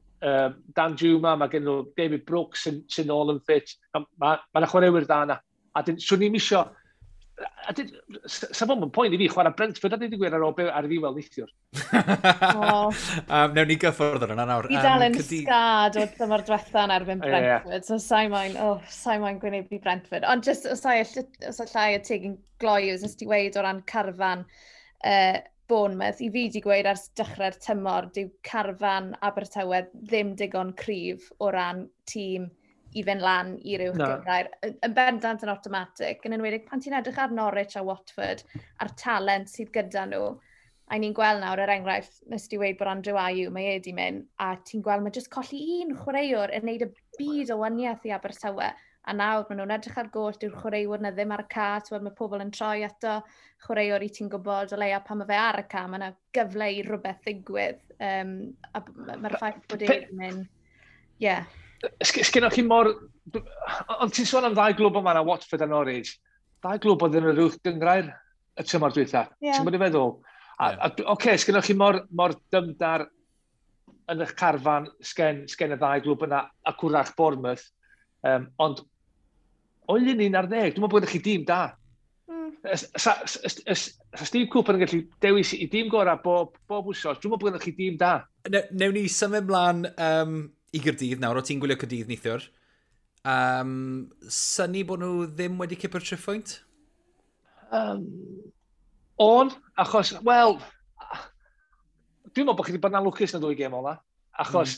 Dan Juma, mae gen nhw David Brooks sy'n ôl yn ffit. Mae yna chwaraewyr da yna. A swn i'n isio... Sa fo'n poen i fi chwarae Brentford a dweud y gwir ar ôl ar ddiwedd neithiwr. Newn ni gyffwrdd ar yna nawr. Fi dal yn sgad o tymor diwetha yn erbyn Brentford, so sa'i moyn gwynebu Brentford. Ond just os allai y teg yn gloi, os ti weid o ran carfan Bournemouth, i fi di gweud ers dechrau'r tymor, dyw carfan Abertawe ddim digon cryf o ran tîm i fynd lan i'r uwch gynghrair. Yn bendant yn automatic, yn enwedig pan ti'n edrych ar Norwich a Watford a'r talent sydd gyda nhw, a ni'n gweld nawr, er enghraifft, nes ti weud bod Andrew Ayew, mae e di mynd, a ti'n gweld mae jyst colli un chwaraewr yn neud y byd o waniaeth i Abertawe, a nawr maen nhw'n edrych ar goll, dyw'r chwaraewr na ddim ar y ca, ti'n mae pobl yn troi ato chwaraewr i ti'n gwybod o leia pan mae fe ar y ca, mae yna gyfle i rhywbeth ddigwydd, a mae'r ffaith bod e wedi mynd, ie. Yeah. Sgynnoch chi mor... Ond ti'n sôn am ddau glwb yma na Watford a Norwich. Ddau glwb oedd yn yr uwch gynghrair y tymor dwytha. Yeah. Ti'n bod i feddwl? Oce, sgynnoch chi mor dymdar yn eich carfan sgen y ddau glwb yna a cwrach Bournemouth. Ond o 11, dwi'n meddwl bod chi dîm da. Sa Steve Cooper yn gallu dewis i dîm gorau bob wsos, dwi'n meddwl bod chi dîm da. Newn ni symud mlaen i Gaerdydd nawr, o ti'n gwylio Caerdydd neithiwr. Synnu bod nhw ddim wedi cipio'r triphwynt? On, achos, wel, dwi'n meddwl bod chi wedi bod yn anlwcus yn y ddwy gêm ola, achos,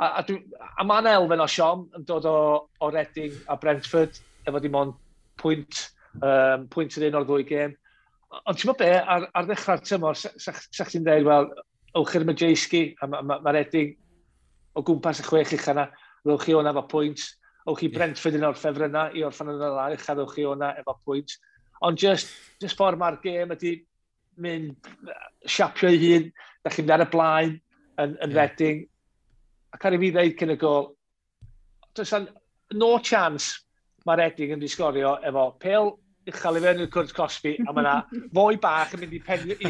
a mae'n elfen o siom yn dod o Reading a Brentford, efo dim ond pwynt yr un o'r ddwy gêm. Ond ti'n meddwl be, ar ddechrau'r tymor, sa chdi'n dweud, wel, ewch i'r Majewski, a mae Reading o gwmpas y 6 ucha yna, ddewch chi o'na efo pwynt, ewch chi Brentford yn o'r ffefrynnau i orffan yn y lan ucha, ddewch chi o'na efo pwynt. Ond just ffordd mae'r gêm ydy mynd siapio ei hun, da chi'n mynd ar y blaen yn Reading. Ac ar i fi ddeud cyn y gol, does no chance mae Reading yn mynd i sgorio efo pêl uchel i fewn i'r cwrt cosbi, a mae yna foi bach yn mynd i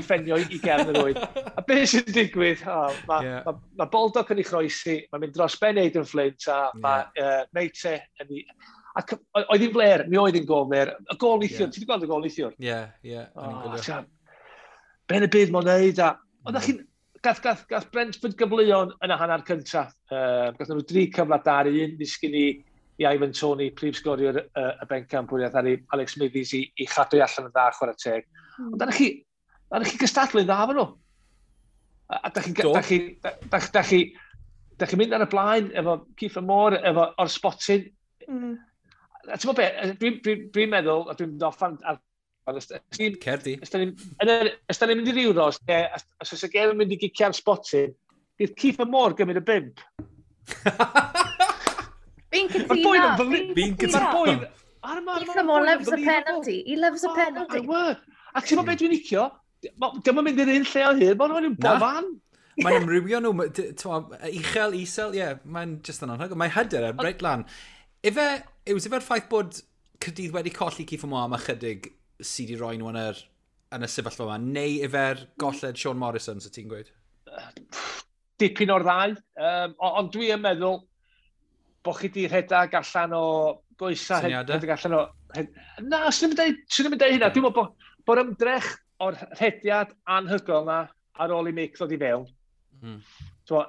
ffenio i gefn yr oed. A beth sy'n digwydd? Mae Baldock yn ei chroesi, mae'n mynd dros ben Aden Flint, a mae Meite yn ei... Ac oedd hi'n fler, mi oedd hi'n gol fler. Y gol neithiwr, ti wedi gweld y gol neithiwr? Ie, ie. Ben y byd mae'n neud, a... Oedd chi'n... Gath Brentford gyfleon yn y hanner cyntaf. Gath nhw 3 cyfle da ar un, ddisgyn i Ivan Toney, prif sgoriwr y bencampwriaeth, ar Alex Smithies i chadw allan yn dda chwarae teg. Ond da chi gystadlu'n dda efo nhw. A da chi'n mynd ar y blaen efo Kieffer Moore, efo o'r spotyn. A ti'n meddwl be, dwi'n meddwl, a dwi'n mynd off ar... Cerdi. Os da ni'n mynd i'r Euros, os oes y gêm yn mynd i gicio'r spotyn, bydd Kieffer Moore gymryd y 5. Fi'n cytuno. Fi'n cytuno. Kieffer Moore loves a penalty. He loves a penalty. A ti'n meddwl beth dwi'n licio? Dim yn mynd i'r un lle o hyd, mae'n nhw'n bob fan. Mae'n amrywio nhw, uchel, isel, ie, mae'n just yn anhygoel. Mae hyder reit lan. Ife, yw ife'r ffaith bod Caerdydd wedi colli Kieffer Moore am ychydig sydd wedi rhoi nhw yn y sefyllfa yma, neu ife'r golled Sean Morrison, sy'n ti'n gweud? Dipyn o'r ddau, ond dwi yn meddwl bod chi di rhedeg allan o goesa, rhedeg allan o... Na, swn i'n dweud hynna. Dwi'n meddwl bod ymdrech o'r rhediad anhygoel na ar ôl i Mick ddod i fewn. So,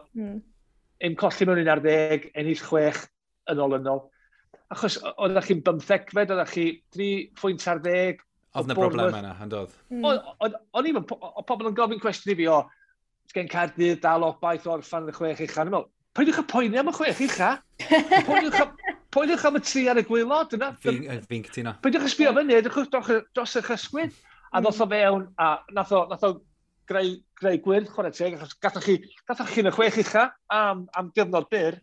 Ein colli mewn 11, ennill 6 yn olynol. Achos oeddech chi'n 15fed, oeddech chi 3 pwynt ar 10. Oedd na broblem yna, yn doedd? O'n i'n, pobl yn gofyn cwestiwn i fi o, gen Caerdydd dal obaith o orffan yn y 6 ucha. O'n i'n meddwl, peidiwch â poeni am y 6 ucha. Poeniwch am y 3 ar y gwaelod. Fi'n cytuno. Peidiwch â sbio fyny, edrychwch dros eich ysgwydd. A ddoth o fewn, a nath o greu gwyrdd, chwarae teg, achos gathoch chi yn y 6 ucha am gyfnod byr,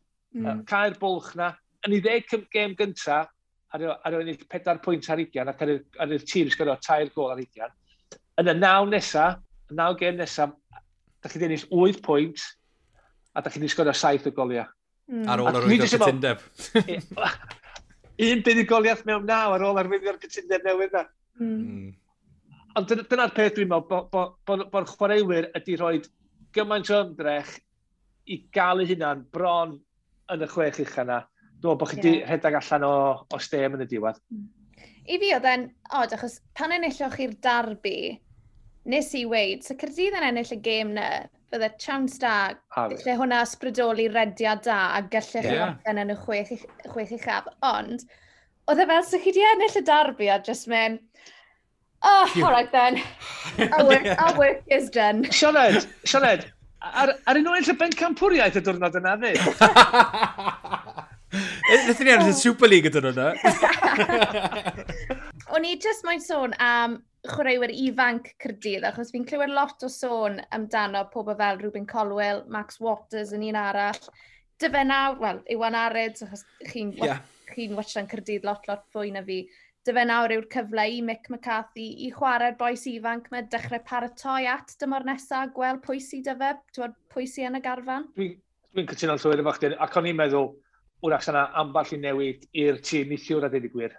cau'r bwlch na. Yn ei 10 gêm gynta, ar ennill 4 pwynt ar 20, ac ar i'r tîm sgorio 3 gôl ar 20. Yn y 9 nesa, y 9 gêm nesa, da chi wedi ennill 8 pwynt, a da chi wedi sgorio 7 o goliau. Ar ôl arwyddio'r cytundeb. Un buddugoliaeth mewn 9 ar ôl arwyddio'r cytundeb newydd na. Ond dyna'r peth dwi'n meddwl, bod chwaraewyr ydy rhoi gymaint o ymdrech i gael eu hunan bron yn y 6 ucha na. Dwi'n meddwl bod chi wedi rhedeg allan o stêm yn y diwedd. I fi oedd e'n odd, achos pan enilloch chi'r derby, nes i weid, so Caerdydd yn ennill y gêm na, bydde chance da, lle hwnna ysbrydoli rediad da a gallech chi orffen yn y 6 uchaf. Ond, oedd e fel, so chi wedi ennill y derby a just mynd, oh, all right then. Our work is done. Sioned, ar un oed y bencampwriaeth y diwrnod yna, fi? Nethon ni ennill y Super League y diwrnod yna. O'n i just moyn sôn am chwaraewyr ifanc Caerdydd, achos fi'n clywed lot o sôn amdano pobl fel Rubin Colwill, Max Waters yn un arall. Dyfe nawr, wel, Iwan Arid, achos chi'n watchan Caerdydd lot fwy na fi. Dyfe nawr yw'r cyfle i Mick McCarthy i chwarae'r bois ifanc mae dechrau paratoi at dymor nesaf, gweld pwy sy dyfe, pwy sy yn y garfan. Dwi'n cytuno'n llwyr efo chdi, ac o'n i'n meddwl, wrach yna ambell i newid i'r tîm neithiwr a dweud y gwir.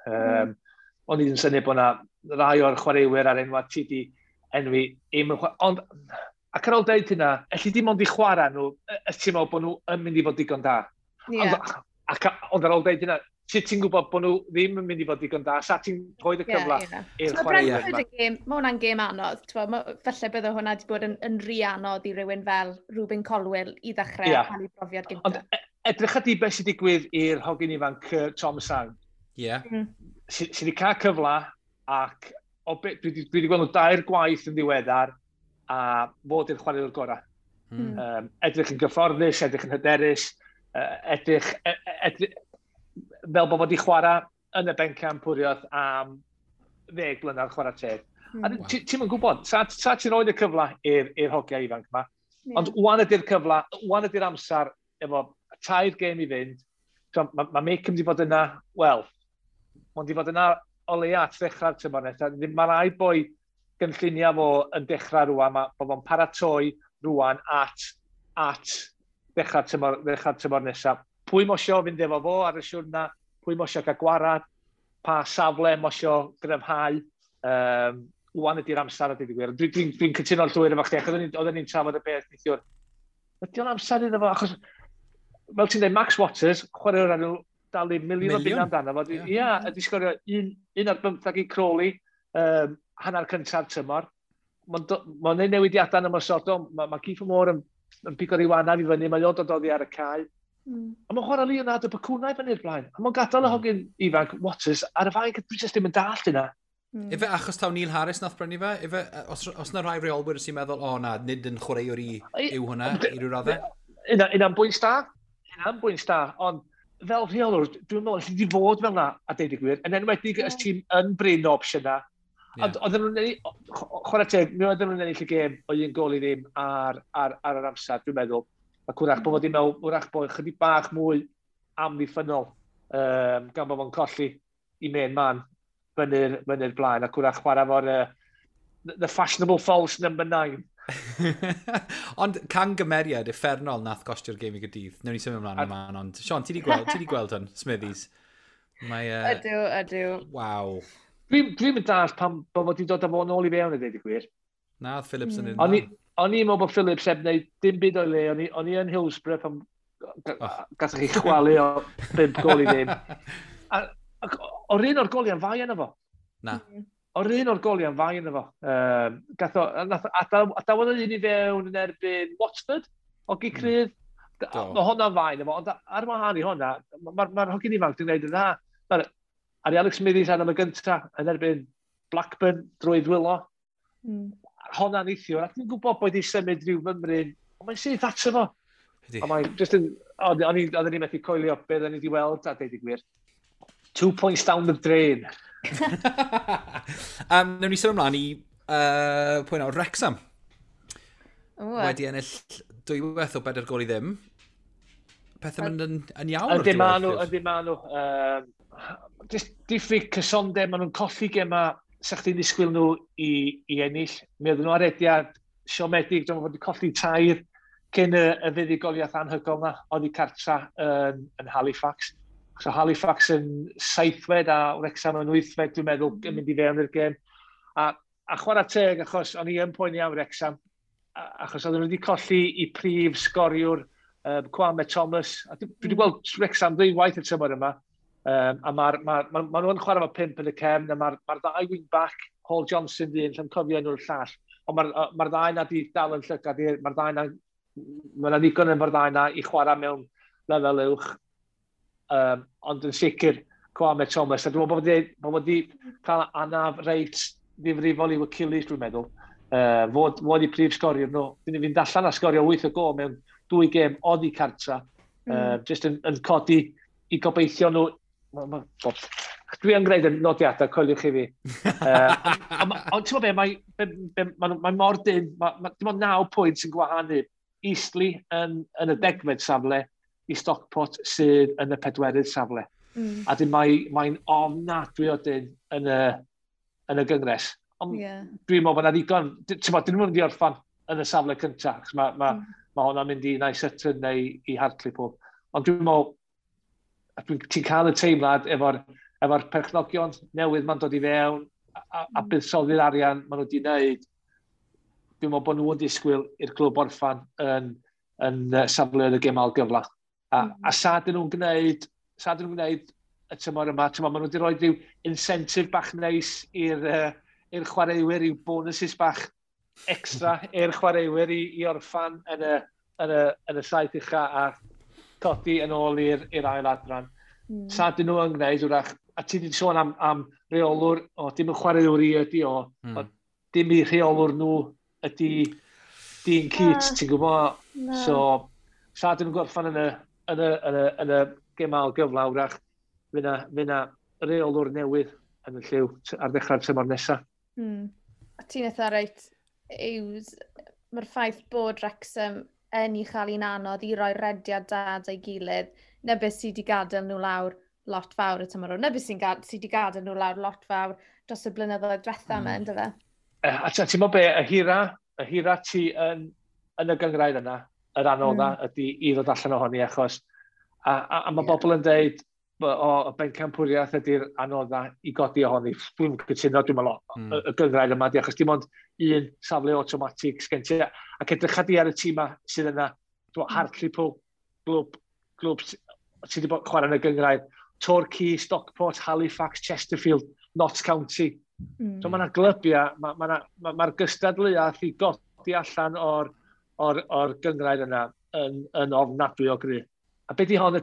O'n i'n syni bod yna rai o'r chwaraewyr ar enwa ti di enwi. Ond, ac ar ôl deud hynna, elli dim ond i chwarae nhw, ti'n meddwl bod nhw yn mynd i fod digon da. Ond ar ôl deud hynna, ti'n gwybod bod nhw ddim yn mynd i fod digon da, sa ti'n rhoi y cyfle i'r chwaraewyr yma. Mae hwnna'n gêm anodd. Falle bydde hwnna wedi bod yn rhy anodd i rywun fel Rubin Colwill i ddechrau cael ei brofiad gyntaf. Ond edrych at i beth sy'n digwydd i'r hogyn ifanc Tom Sang. Sydd wedi cael cyfle ac dwi wedi gweld nhw 2 gwaith yn ddiweddar a fod i'r chwaraewr gorau. Edrych yn gyfforddus, edrych yn hyderus, edrych fel bod wedi chwarae yn y bencampwriaeth am 10 blynedd chwarae teg. A ti'm yn gwybod, sa ti'n rhoi y cyfle i'r hogiau ifanc yma. Ond wan ydy'r cyfle, wan ydy'r amser efo 3 gêm i fynd. So, mae Mick yn mynd i fod yna, wel, mae'n mynd i fod yna o leia at ddechrau'r tymor nesaf. Mae rai boi gynlluniau fo yn dechrau rwan, bod fo'n paratoi rwan at ddechrau'r tymor nesaf. Pwy mosio fynd efo fo ar y siwrna, pwy mosio gael gwarad, pa safle mosio gryfhau, wan ydy'r amser a dweud y gwir. Dwi'n cytuno'n llwyr efo chdi, achos oedden ni'n trafod y peth neithiwr. Ydy o'n amser iddo fo, achos, fel ti'n dweud, Max Waters, chwaraewr ar nhw dalu miliwn o bunna amdano fo. Ia, ydy sgorio 1 ar 15 i Crawley, hanner cyntaf tymor. Mae'n gwneud newidiadau yn ymosodol, mae Kieffer Moore yn pigo ryw anaf i fyny, mae o'n dod oddi ar y cae. A mae'n chwarae Leonardo Bacuna i fyny'r blaen. A mae'n gadael y hogyn ifanc Waters ar y fainc, dwi jyst ddim yn dallt yna. Ife achos taw Neil Harris nath brynu fe? Ife, os na rai reolwyr sy'n meddwl, o na, nid yn chwaraewr i yw hwnna, i ryw raddau? Yna'n bwynt da. Yna'n bwynt da, ond fel rheolwr, dwi'n meddwl, alli di fod fel na, a deud y gwir, yn enwedig os ti'n yn brin o opsiynau. Ond oedden nhw'n ennill, chwarae teg, mi oedden nhw'n ennill y gêm o 1 gôl i ddim ar yr amser, dwi'n meddwl. Ac wrach bod fod i'n meddwl, wrach bod chydig bach mwy amddiffynnol, gan bod fo'n colli i main man fyny'r blaen, ac wrach chwarae fo'r the fashionable false number 9. Ond cangymeriad uffernol nath gostio'r gêm i Gaerdydd. Newn ni symud ymlaen yma, ond Sean, ti di gweld hwn, Smithies? Mae, Ydw, ydw. Waw. Dwi'n dwi mynd dall pam bod wedi dod â fo nôl i fewn i ddweud y gwir. Na, oedd Phillips yn un. O'n i'n meddwl bod Phillips heb wneud dim byd o'i le. O'n i yn Hillsborough pan gathoch chi chwalu o 5 gol i ddim. Ac o'r un o'r goliau'n fai yna fo. Na. O'r un o'r goliau'n fai yna fo. Gath o, nath, adawodd un i fewn yn erbyn Watford, o Gicrydd. Mae hwnna'n fai yna fo, ond ar wahân i hwnna, mae'r ma hogyn ifanc dwi'n gwneud yn dda. Mae'r Ari Alex Smithies ar am y gynta yn erbyn Blackburn drwy ddwylo. Hwnna'n neithiwr, a dwi'n gwybod bod wedi symud rhyw fymryn, ond mae'n syth ato fo. A mae'n just yn, o'n i'n methu coelio beth o'n i wedi weld, a deud y gwir. 2 points down the drain. Newn ni symud ymlaen i pwy nawr, Wrexham. Wedi ennill 2 o 4 gol i ddim. Pethau mynd yn iawn o'r Yndi ma nhw, yndi ma nhw. Just diffyg cysondeb, maen nhw'n colli gema sa chdi'n disgwyl nhw i ennill. Mi oedden nhw ar rediad siomedig, dwi'n fod wedi colli tair cyn y fuddugoliaeth anhygoel na, oedd i cartra yn Halifax. So Halifax yn seithfed a Wrexham yn wythfed, dwi'n meddwl, yn mynd i fewn i'r gêm. A chwarae teg, achos o'n i yn poeni am Wrexham, achos oedden nhw wedi colli i prif sgoriwr Kwame Thomas. A dwi wedi gweld Wrexham ddwywaith y tymor yma. A mae'r ma, ma, ma nhw'n chwarae efo pump yn y cefn, a mae'r ma ddau wing back, Hall Johnson di un, lle'n cofio enw'r llall. Ond mae'r ma ddau na di dal yn llygad, mae'r ddau na, mae yna ddigon yn ddau na i chwarae mewn lefel uwch. Ond yn sicr, Kwame Thomas, a dwi'n meddwl bod wedi cael anaf reit ddifrifol i'w Achilles, dwi'n meddwl. Fod i prif sgoriwr nhw. Dyn ni fynd allan a sgorio 8 o gol mewn dwy gêm oddi cartra. Just yn codi i gobeithio nhw. Dwi yn gwneud y nodiadau, coeliwch i fi. Ond ti'n gwybod be, mae mor dyn, dim ond 9 pwynt sy'n gwahanu Eastleigh yn y 10fed safle i Stockport sydd yn y pedwerydd safle. A dyn mae'n ofnadwy o dyn yn y gyngres. Ond dwi'n meddwl bod yna ddigon, ti'n gwybod, dyn nhw'n mynd i orffan yn y safle cyntaf, achos ma hwnna'n mynd i nai Sutton neu i Hartlepool. Ond dwi'n meddwl, ti'n cael y teimlad efo perchnogion newydd ma'n dod i fewn a buddsoddi'r arian maen nhw wedi wneud, dwi'n meddwl bod nhw'n disgwyl i'r clwb orffan yn safle y gêm ail gyfla. A sa dyn nhw'n gwneud y tymor yma, tymor, maen nhw wedi rhoi rhyw incentive bach neis i'r chwaraewyr, i'w bonuses bach extra i'r chwaraewyr i orffan yn y saith ucha a codi yn ôl i'r ail adran. Sa dyn nhw yn gwneud, wrach, a ti wedi sôn am reolwr, o, dim yn chwaraewr i ydi o, o, dim i rheolwr nhw ydi Dean Keats, ti'n gwybod? Na. So, sa dyn nhw'n gorffan yn y gêm ail gyfla, wrach, fydd na reolwr newydd yn y lliw ar ddechrau'r tymor nesaf. A ti'n eitha reit, Yws, mae'r ffaith bod Wrexham yn ei chael hi'n anodd i roi rediad da ei gilydd, na beth sydd wedi gadael nhw lawr lot fawr y tymor hwn. Na beth sydd wedi gadael nhw lawr lot fawr dros y blynyddoedd diwetha yma, ynddo fe? A ti'n meddwl be, y hira ti yn y gynghrair yna, yr anodda ydy i ddod allan ohoni, achos a mae bobl yn deud, o, y bencampwriaeth ydy'r anodda i godi ohoni. Dwi'n cytuno, dwi'n meddwl, y gynghrair yma, di, achos dim ond un safle automatic sgen ti. Ac edrych di ar y tîm sydd yna, dwi'n meddwl, Hartlepool, glwb sydd wedi bod chwarae yn y gynghrair, Torquay, Stockport, Halifax, Chesterfield, Notts County. So mae yna glybiau, mae'r ma gystadleuaeth i godi allan o'r gynghrair yna yn ofnadwy o gry. A beth di hon, y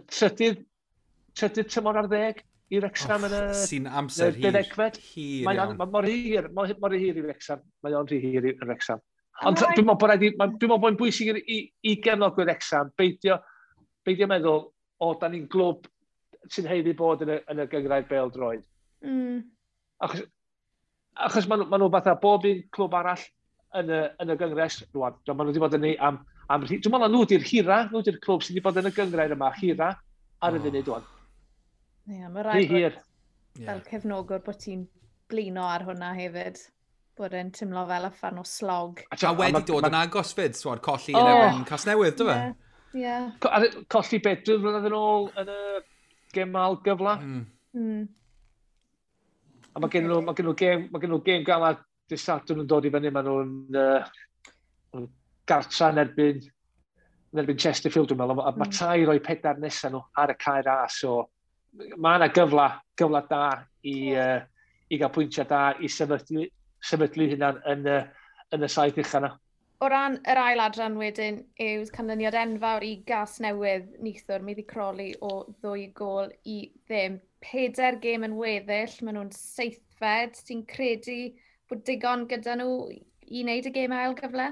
trydydd tymor ar ddeg i Wrexham yn y Sy'n amser hir. deuddegfed? Hir Mae'n iawn. ma, mor hir, mor hir i Wrexham. Mae o'n rhy hir i Wrexham. Ond rhaid- dwi'n meddwl bod rhaid i, dwi'n meddwl bod yn bwysig i gefnogwyr Wrexham beidio meddwl, o, da ni'n glwb sy'n haeddu bod yn y gynghrair bêl-droed. Achos ma nhw fatha bob un clwb arall yn y gyngres, rwan, maen nhw wedi bod yn ei am, dwi'n meddwl na nhw di'r hira, nhw di'r clwb sydd wedi bod yn y gynghrair yma, hira ar y funud rwan. Ie, mae Rhy rhaid bod hir. Fel cefnogwr bod ti'n blino ar hwnna hefyd. Bod e'n teimlo fel uffern o slog. A wedi dod yn agos fyd, swad, colli yn erbyn Casnewydd, do fe? Ie. Colli beth, 2 flynedd yn ôl yn y gêm ail gyfla. A mae gen nhw, mae gen nhw gêm galad dydd Sadwrn yn dod i fyny, maen nhw'n gartra yn erbyn Chesterfield, dwi'n meddwl. A mae 3 o'i 4 nesaf nhw ar y Cae Ras, so mae yna gyfla da i gael pwyntiau da i sefydlu hynna'n yn y saith ucha yna. O ran yr ail adran wedyn yw canlyniad enfawr i Gasnewydd neithiwr, maeddu Crawley o 2-0. 4 gêm yn weddill, maen nhw'n seithfed. Ti'n credu bod digon gyda nhw i wneud y gêm ail gyfle?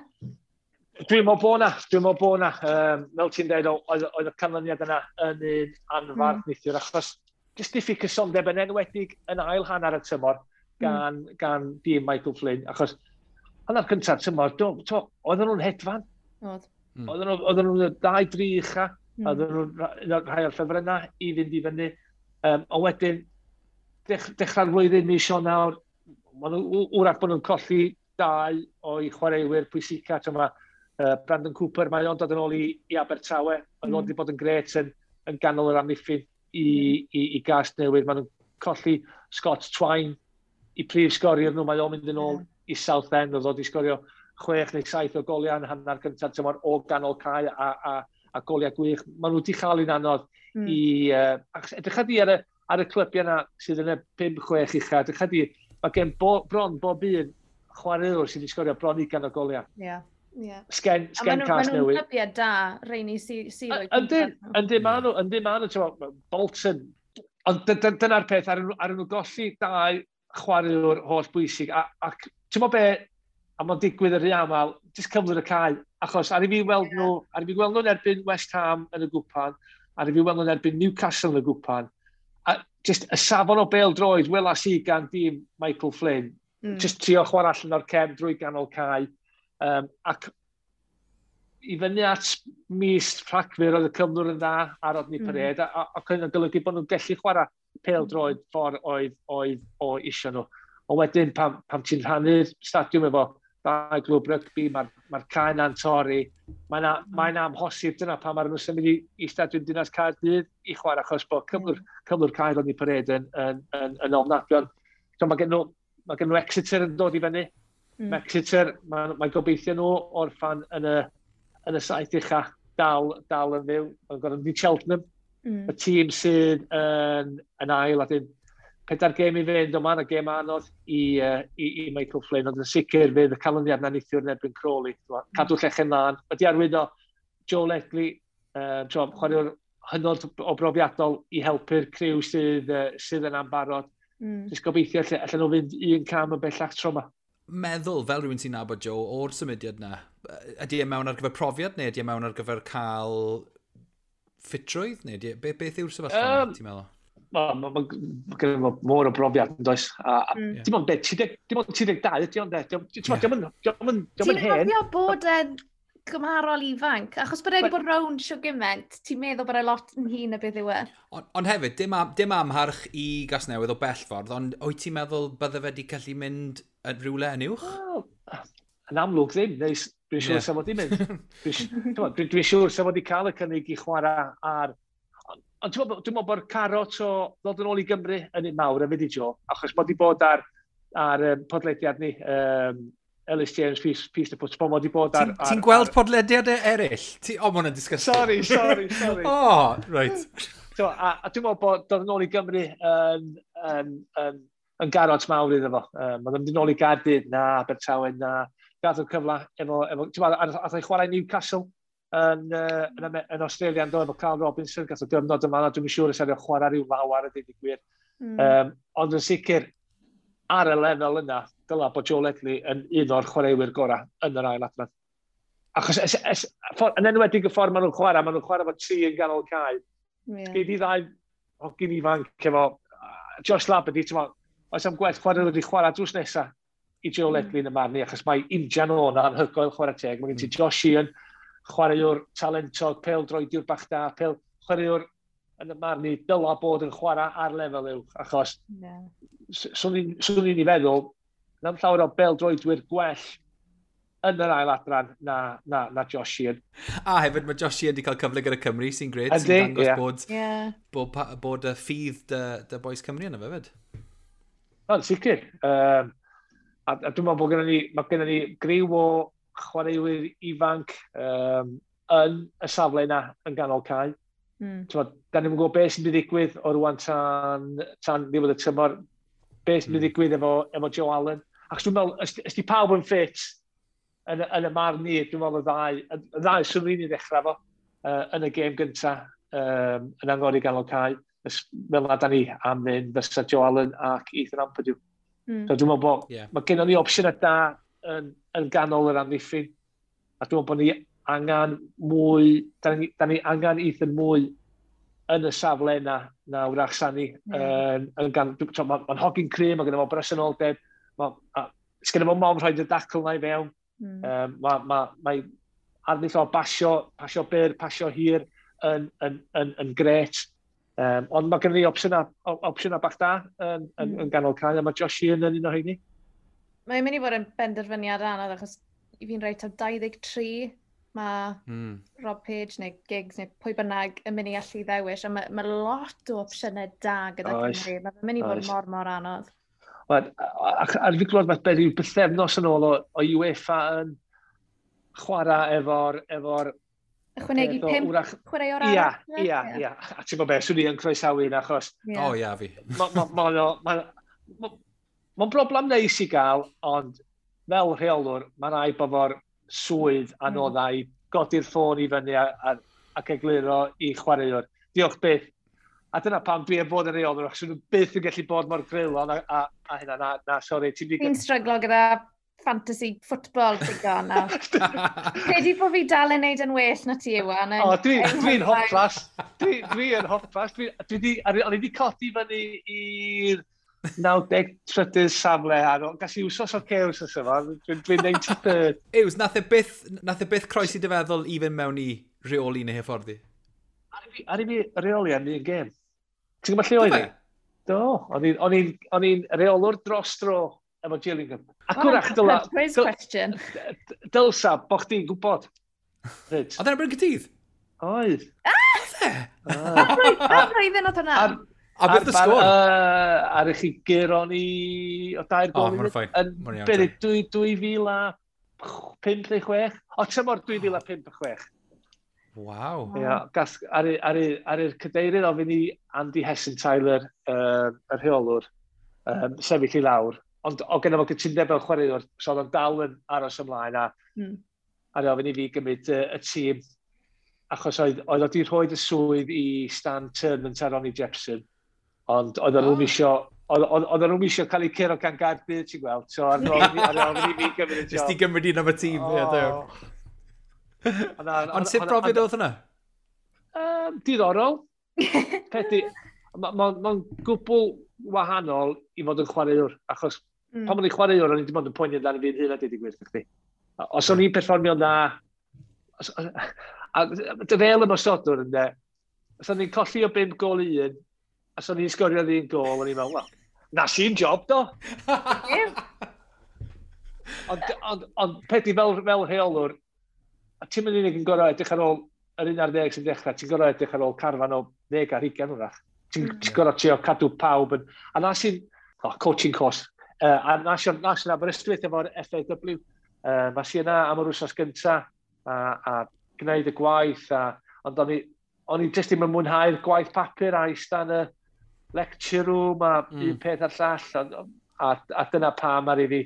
Dwi'n meddwl bod na, dwi'n meddwl bod na. Fel ti'n dweud, oedd y canlyniad yna yn un anfarth neithiwr, achos jyst diffyg cysondeb yn enwedig yn ail hanner y tymor gan dîm Michael Flynn, achos hanner cyntaf tymor, oedden nhw'n hedfan. Oedd. Oedden nhw'n dau dri ucha, oedden nhw'n rhai o'r ffefrynnau i fynd i fyny. Ond wedyn, dechrau'r flwyddyn mis Ionawr, maen nhw, wrach bod nhw'n colli dau o'i chwaraewyr pwysica. Mae Brandon Cooper, mae o'n dod yn ôl i Abertawe. Mae o'n wedi bod yn gret yn ganol yr amddiffyn i Gasnewydd. Maen nhw'n colli Scott Twine i prif sgoriwr nhw. Mae o'n mynd yn ôl i Southend, oedd wedi sgorio 6 neu 7 o goliau yn hanner cyntaf tymor o ganol cae a goliau gwych. Maen nhw wedi chael un anodd i... Edrych di ar y clybiau yna sydd yn y 5-6 ucha, edrych di, mae gen bron bob un chwaraewr sydd wedi sgorio bron 20 o goliau. Ie. Yeah. Sgen Cas Newydd. A maen nhw'n clybiau da, rheini sydd o'i. Yndyn, yndyn maen nhw, Bolton. Ond dyna'r peth, ar nhw golli dau chwaraewr holl bwysig. Ac ti'n meddwl be, a mae'n digwydd yn rhy aml, jyst cyflwr y cae. Achos ar i fi weld nhw, ar i fi weld nhw'n erbyn West Ham yn y gwpan, ar i fi weld nhw'n erbyn Newcastle yn y gwpan, a jyst y safon o bêl droed welas i gan dîm Michael Flynn, jyst trio chwarae allan o'r cefn drwy ganol cae, ac i fyny at mis Rhagfyr oedd y cyflwr yn dda ar Rodney Parade, ac yn golygu bod nhw'n gallu chwarae pêl droed ffordd oedd o isio nhw. Ond wedyn, pam ti'n rhannu'r stadiwm efo dau glwb rygbi, mae'r cae na'n torri, mae'n mae amhosib dyna pam maen nhw'n symud i stadiwm Dinas Caerdydd i chwarae, achos bod cyflwr cae Rodney Parade yn ofnadwy. So, mae gen nhw Exeter yn dod i fyny. Exeter, mae gobeithio nhw orffan yn y saith ucha dal yn fyw. Mae'n gorfod mynd i Cheltenham, y tîm sydd yn ail, a dyn 4 gêm i fynd, ond mae'n gêm anodd i Michael Flynn, ond yn sicr fydd y canlyniad na neithiwr yn erbyn Crawley. Cadw llechen lân. Wedi arwyddo Joe Ledley, chwaraewr hynod o brofiadol i helpu'r criw sydd yn ambarod. Jyst gobeithio allan nhw fynd un cam yn bellach tro yma. Meddwl, fel rhywun sy'n nabod Joe, o'r symudiad na, ydy e mewn ar gyfer profiad neu ydy e mewn ar gyfer cael ffitrwydd? Neu beth yw'r sefyllfa, ti'n meddwl? Mae gen fo môr o brofiad yn does. A dim ond dim ond 32 ydy ond de. Dim ond hen. Ti'n cofio bod e'n gymharol ifanc? Achos bod e wedi bod rownd shwd gymaint, ti'n meddwl bod e lot yn hŷn na beth yw e? Ond hefyd, dim amharch i Gasnewydd o bell ffordd, ond wyt ti'n meddwl bydde fe wedi gallu mynd yn rhywle yn uwch? Well, yn amlwg ddim, neu dwi'n siŵr sa fod i mynd. Dwi'n siŵr sa fod i cael y cynnig i chwarae ar. Ond dwi'n meddwl bod carot o ddod yn ôl i Gymru yn un mawr hefyd i Joe, achos bod i bod ar podlediad ni, Ellis James, Piece of Football, mod i bod ar... Ti'n gweld podlediadau eraill? O, ma hwnna'n disgusting. Sorry, sorry, sorry. Oh, right. So, a dwi'n meddwl bod dod yn ôl i Gymru yn garot mawr iddo fo. Mae'n mynd yn ôl i Gaerdydd, na, Abertawe, na. Gath o'r cyfle efo ti'n meddwl, ath o'i chwarae Newcastle yn Australia yn do, efo Carl Robinson, gath o gyfnod yma, a dwi'n siŵr os oedd chwarae rhyw lawar a dweud y gwir. Ond yn sicr, ar y lefel yna, dyla bod Joe Ledley yn un o'r chwaraewyr gorau yn yr ail adran. Achos yn enwedig y ffordd maen nhw'n chwarae efo tri yn ganol cae. Yeah. Gei di ddau hogyn ifanc efo Josh Labadie, ti'n meddwl, oes am gwell chwarae wedi chwarae drws nesaf i Joe Ledley yn y marn i, achos mae injan o'n anhygoel, chwarae teg. Mae gen ti Josh Sheehan, chwaraewr talentog, pêl droediwr bach da, pêl chwaraewr yn y marn i dyla bod yn chwarae ar lefel uwch, achos swn i'n i feddwl, na'm llawer o bêl droedwyr gwell yn yr ail adran na Josh Sheehan. A hefyd mae Josh Sheehan wedi cael cyfle gyda Cymru, sy'n gret, sy'n dangos bod y ffydd dy boys Cymru yna fe fyd. O'n, sicr. A dwi'n meddwl bod gennym ni, mae gennym ni griw o chwaraewyr ifanc yn y safle yna yn ganol cae. Da ni'n gwybod beth sy'n mynd i ddigwydd o rwan tan ddiwedd y tymor, beth sy'n mynd i ddigwydd efo Joe Allen. Ac dwi'n meddwl, os di pawb yn ffit yn y marn ni, dwi'n meddwl y ddau swn i'n ddechrau fo yn y gêm gyntaf yn angori ganol cae. Fel na da ni am fynd fysa Joe Allen ac Ethan Ampadu. So dwi'n meddwl bod mae gennym ni opsiynau da yn ganol yr amddiffyn. A dwi'n meddwl bod ni angen mwy, da ni angen Ethan mwy yn y safle yna na wrach Sani. Mae'n hogyn cry, mae gennym fo bresenoldeb, sgynno fo mom rhaid y dacl na i fewn. Mae arddull o pasio byr, pasio hir yn gret. Ond mae gennym ni opsiynau bach da yn ganol cae, a mae Josh Sheehan yn un o heini. Mae'n mynd i fod yn benderfyniad anodd, achos i fi'n rhaid taw 23 mae Rob Page neu Giggs neu pwy bynnag yn mynd i allu ddewis, a mae lot o opsiynau da gyda Cymru. Mae'n mynd i fod mor anodd. A fi glwad fath beth yw bythefnos yn ôl o UEFA yn chwarae efo'r ychwanegu 5 chwaraewr arall. Ia. A ti'n gwybod beth, swn i yn croesawu hynna, achos... O, ia, fi. Mae'n broblem neis i gael, ond fel rheolwr, mae'n rhaid bod fo'r swydd anoddau i godi'r ffôn i fyny ac egluro i chwaraewr. Diolch byth. A dyna pam dwi am fod yn rheolwr, achos nhw byth yn gallu bod mor greulon a hynna. Na, sori. Fi'n stryglo gyda fantasy football digon nawr. Credu bod fi dal yn neud yn well na ti, Iwan. O, dwi'n hoplas. Dwi yn hoplas. O'n i wedi codi fyny i'r 93rd safle ar ôl. Gas i wsos o'r cews os yma. Dwi'n 93rd. Ews, nath e byth croesi dy feddwl i fynd mewn i reoli neu hyfforddi? Ar i fi reoli am un gêm. Ti'n gwybod lle oedd i? Do. O'n i'n reolwr dros dro efo Gillingham. Ac wrach, quiz question. Dylsa, bo chdi'n gwybod. Oedd e'n Bryn Cytydd? Oedd. Oedd e? Pa flwyddyn oedd hwnna? A beth y sgôr? Ar i chi guro ni o 2 gol. O, mae'n ffain. Beth, 2005 neu 6? O, tymor 2005 a 6. Waw. Ia, ar i'r cadeirydd ofyn i Andy Hessenthaler, y rheolwr, sefyll i lawr. Ond o genna fo gytundeb fel chwaraewr, so oedd o'n dal yn aros ymlaen a ar ofyn i fi gymryd y tîm, achos oedd o wedi rhoi y swydd i Stan Turnant a Ronnie Jepson, ond oedd nhw'n isio cael eu curo gan Gaerdydd, ti'n gweld, so ar ofyn i fi gymryd y job. Nes ti gymryd un am y tîm, ie, Ond sut brofiad oedd hwnna? Diddorol. Peth mae'n gwbl wahanol i fod yn chwaraewr, achos pan o'n i'n chwaraewr, o'n i dim ond yn poeni amdano fi'n hun a deud y gwir chdi. Os o'n i'n perfformio'n dda, a fel ymosodwr ynde, os o'n i'n colli o 5 gôl i 1, os o'n i'n sgorio 1 gôl, o'n i'n meddwl, wel, na sy'n job do. Ond peth i fel rheolwr, a ti'n mynd unig yn gorau edrych ar ôl yr 11 sy'n dechrau, ti'n gorau edrych ar ôl carfan o 10 ar 20 wrach. Ti'n gorau trio cadw pawb yn... A na sy'n... Oh, coaching course. A na sy'n Aberystwyth efo'r FAW. Ma sy'n yna am yr wsos gynta a gwneud y gwaith. Ond o'n i jyst ddim yn mwynhau'r gwaith papur a eista yn y lecture room a un peth a'r llall. A dyna pam ar i fi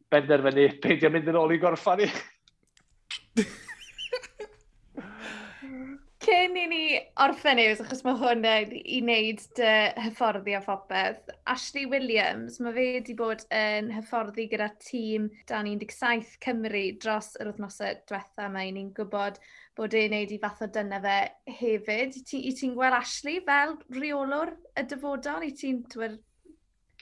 benderfynu peidio mynd yn ôl i gorffan i. Cyn i ni orffen Ews, achos mae hwn i wneud dy hyfforddi a phopeth, Ashley Williams, mae fe wedi bod yn hyfforddi gyda tîm dan 17 Cymru dros yr wythnosau diwetha. Mae ni'n gwybod bod e'n wneud i fath o dyna fe hefyd. I ti'n gweld Ashley fel rheolwr y dyfodol? I ti'n...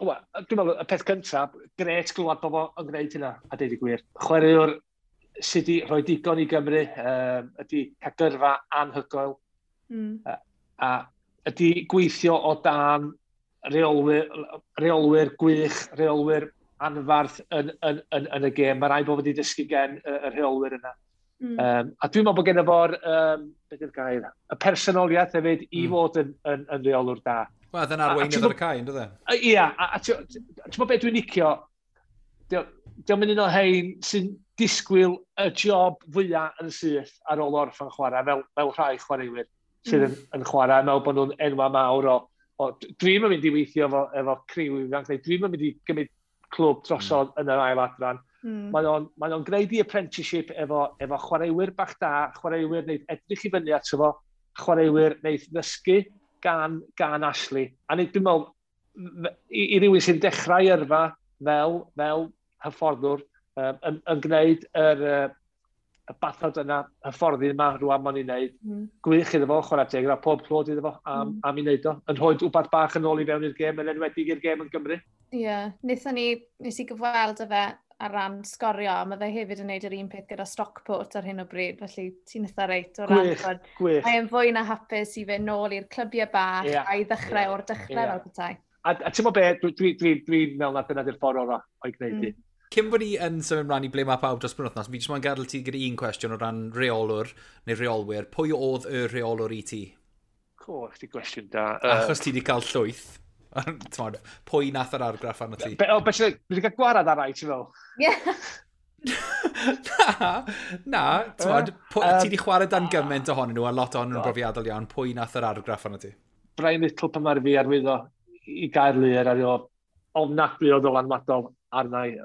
Wel, dwi'n meddwl, y peth cyntaf, gret glwad bod o'n gwneud hynna, a deud y gwir. Chwaraewr sydd wedi rhoi digon i Gymru, ydy cael gyrfa anhygoel, a ydy gweithio o dan reolwyr gwych, reolwyr anfarth yn y gêm. Mae rhaid bod wedi dysgu gen y rheolwyr yna. A dwi'n meddwl bod gen fo'r, beth yw'r gair, y personoliaeth hefyd i fod yn rheolwr da. Wel, dyna arweinydd ar y cae, ynddo fe? Ia, a ti'n meddwl beth dwi'n licio, dio'm yn un o hein sy'n disgwyl y job fwyaf yn syth ar ôl orffen chwarae, fel rhai chwaraewyr sydd yn chwarae, meddwl bod nhw'n enwa mawr o dwi'n mynd i weithio efo criw ifanc, neu dwi'n mynd i gymryd clwb drosodd yn yr ail adran. Mae o'n gwneud i apprenticeship efo chwaraewyr bach da, chwaraewyr wneud edrych i fyny ato fo, chwaraewyr wneud ddysgu gan Ashley. A nid, dwi'n meddwl, i rywun sy'n dechrau yrfa fel hyfforddwr, yn gwneud y bathod yna, hyfforddi yma rwan ma'n ei wneud. Gwych iddo fo, chwarae teg, a pob clod iddo fo am ei wneud o. Yn rhoi wbath bach yn ôl i fewn i'r gêm, yn enwedig i'r gêm yn Gymru. Ie, yeah. Nes i gyfweld â fe ar ran Sgorio, a mae fe hefyd yn gwneud yr un peth gyda Stockport ar hyn o bryd, felly ti'n eitha reit o ran. Gwych, gwych. Mae'n fwy na hapus i fynd nôl i'r clybiau bach a i ddechrau o'r dechrau fel petai. A ti'n meddwl be, dwi'n meddwl na dyna di'r ffordd orau o'i gwneud i. Cyn bod ni yn symud ymlaen i ble mae pawb dros penwythnos, fi jyst moyn gadael ti gyda un cwestiwn o ran rheolwr neu rheolwyr. Pwy oedd y rheolwr i ti? Co, chdi gwestiwn da. Achos ti wedi cael llwyth. T'mod, pwy nath yr argraff arno ti? Be, ti wedi cael gwarad ar rai, ti'n fel? Ie. Na, t'mod, ti wedi chwarae dan gymaint ohonyn nhw, a lot ohonyn nhw'n brofiadol iawn. Pwy nath yr argraff arno ti? Brian Little pan mae'r fi arwyddo i Gaerlŷr ar o ofnadwy o ddylanwadol arna i.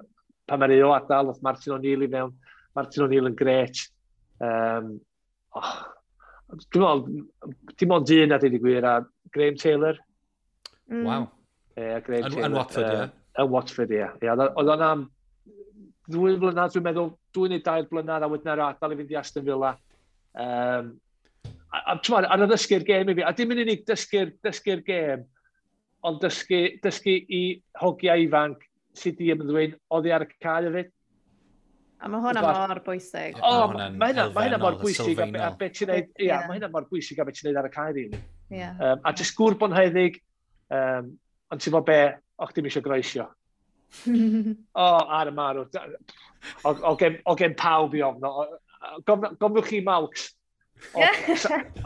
Pan mae'r o adael, oedd Martin O'Neill i mewn. Martin O'Neill yn gret. Dwi'n meddwl, dim ond un a dweud y gwir, a Graham Taylor. Waw. Graham Taylor. Yn Watford, ie? Yn Watford, ie. Oedd o'n am 2 blynedd, dwi'n meddwl, 2 neu 3 blynedd, a wedyn ar adael i fynd i Aston Villa. A ti'n meddwl, ar y ddysgu'r gêm i fi, a dim yn unig dysgu'r gêm, ond dysgu i hogiau ifanc sydd di ymddwyn oddi ar y cae hefyd. A mae hwnna mor bwysig. O, mae hynna mor bwysig a beth ti'n neud, ia, mae hynna mor bwysig a beth ti'n neud ar y cae, rili. A jyst gŵr bonheddig, ond ti'n bod be, o'ch dim eisiau groesio. O, ar y marw. O gen pawb i ofno. Gofnwch chi Malks.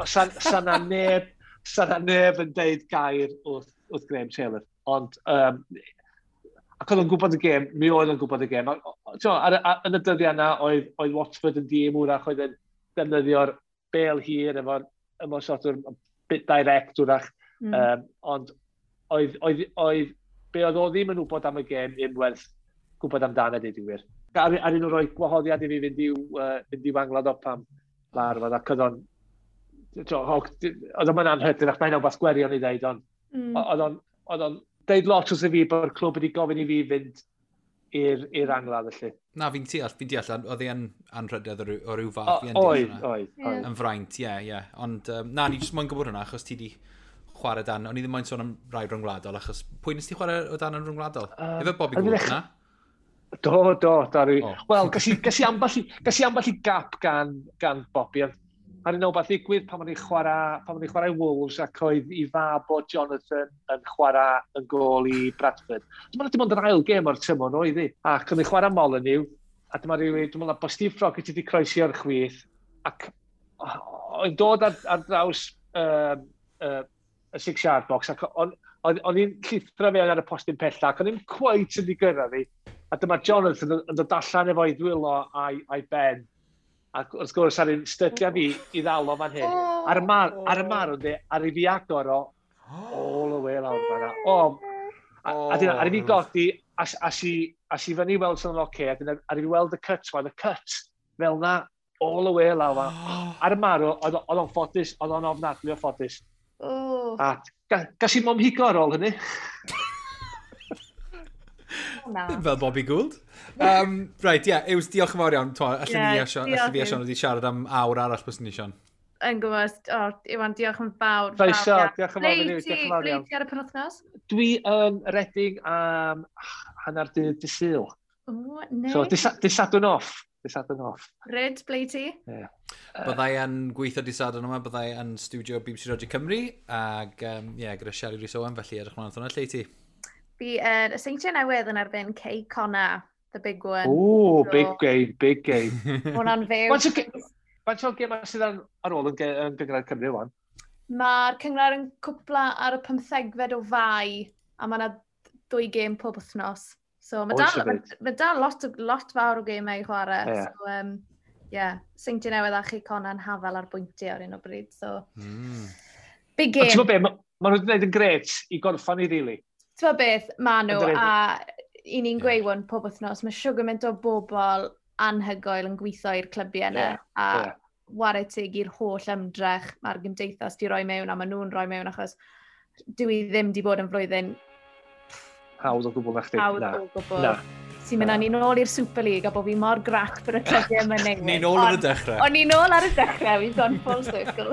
Sa na neb yn deud gair wrth Graham Taylor. Ond, ac oedd o'n gwybod y gêm, mi oedd o'n gwybod y gêm. Yn y dyddiau yna, oedd Watford yn dîm wrach, oedd yn defnyddio'r bel hir efo'r ymosodwr bit direct wrach. Ond oedd, be oedd o ddim yn wybod am y gêm, ddim werth gwybod amdano, deud y gwir. Ar un o'r roi gwahoddiad i fi fynd i'w anglad o pam larfod, ac oedd o'n oedd o'n anhygoel, ac mae'n wbath gwirion i ddeud, ond oedd o'n deud lot wrth i fi bod y clwb wedi gofyn i fi fynd i'r angladd, felly. Na, fi'n deall, oedd e'n anrhydedd o ryw fath. Oedd. Yn fraint, ie. Ond na, ni jyst moyn gwybod hwnna, achos ti di chwarae dan, o'n i ddim moyn sôn am rai rhyngwladol, achos pwy nes ti chwarae o dan yn rhyngwladol? Efo Bobby Gould, na? Do, dari. Wel, gas i ambell i gap gan Bobby, ond ar un o beth ddigwydd pan o'n i'n chwarae Wolves ac oedd i fab o Jonathan yn chwarae yn gôl i Bradford. Dwi'n meddwl dim ond yr ail gêm o'r tymor oedd hi. Ac o'n i'n chwarae Molyneux, a dyma rhywun, dwi'n meddwl bod Steve Froggatt wedi croesi o'r chwith, ac oedd dod ar draws y 6-yard box, ac o'n i'n llithro fewn ar y postyn pella, ac o'n i'n quite yn gyrraedd fi. A dyma Jonathan yn dod allan efo'i ddwylo a'i ben. Ac wrth gwrs, ar un stydia fi i ddal o fan hyn. Ar y marw, ar i fi agor o, all the way lawr fan'na. A dyna, ar i fi godi, a si fyny weld sy'n oce, a dyna, ar i fi weld y cut, y cut, fel na, all the way lawr fan'na. Ar y marw, oedd o'n ffodus, oedd o'n ofnadwy o ffodus. A gas i mom higo ar ôl hynny. Ddim fel Bobby Gould. Right, ie, Yws, diolch yn fawr iawn. Allen ni a Sion wedi siarad am awr arall bys ni, Sion. Yn gwybod, Iwan, diolch yn fawr. Croeso, diolch yn fawr. Ble ti ar y penwythnos? Dwi yn Reading am hanner dydd Sul. O, neis. So, dydd Sadwrn off. Ryd, ble ti? Yeah. Byddai yn gweithio dydd Sadwrn yma, byddai yn studio BBC Radio Cymru, ac gyda Shelley Rhys Owen, felly edrych mlaen at hwnna. Lle ti? Fi y Seintiau Newydd yn erbyn Cei Connah, the big one. Ooh, so, big game, big game. Hwna'n fyw. Faint o gemau sydd ar ôl yn Gynghrair Cymru wan? Mae'r cynghrair yn cwpla ar y 15fed o Fai, a mae yna 2 gêm pob wythnos. So mae dal, ma dal lot fawr o gemau i chwarae. Yeah. So, yeah, Seintiau Newydd a Chei Connah yn hafel ar bwyntiau ar un o bryd. So, big game. Ti'n gwybod be, ma nhw wedi gwneud yn gret i gorffan i, really. Ti'n gwybod beth, ma nhw, a i ni'n gweud hwn pob wythnos, mae siwr gymaint o bobl anhygoel yn gweithio i'r clybiau yna, a whare teg i'r holl ymdrech mae'r gymdeithas di roi mewn, a maen nhw'n rhoi mewn, achos dwi ddim di bod yn flwyddyn hawdd o gwbl na chdi. Hawdd o gwbl. Na. Sy'n mynd â ni nôl i'r Super League a bod fi mor grac bod y clybiau yma newid. Ni nôl ar y dechrau. O'n ni nôl ar y dechrau, we've gone full circle.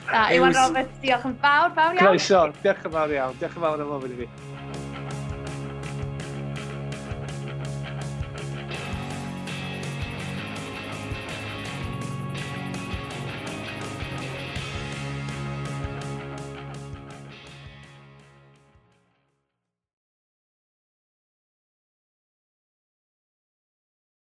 Na, Iwan Roberts, diolch yn fawr, fawr iawn. Croeso, diolch yn fawr iawn. Diolch yn fawr am ofyn i fi.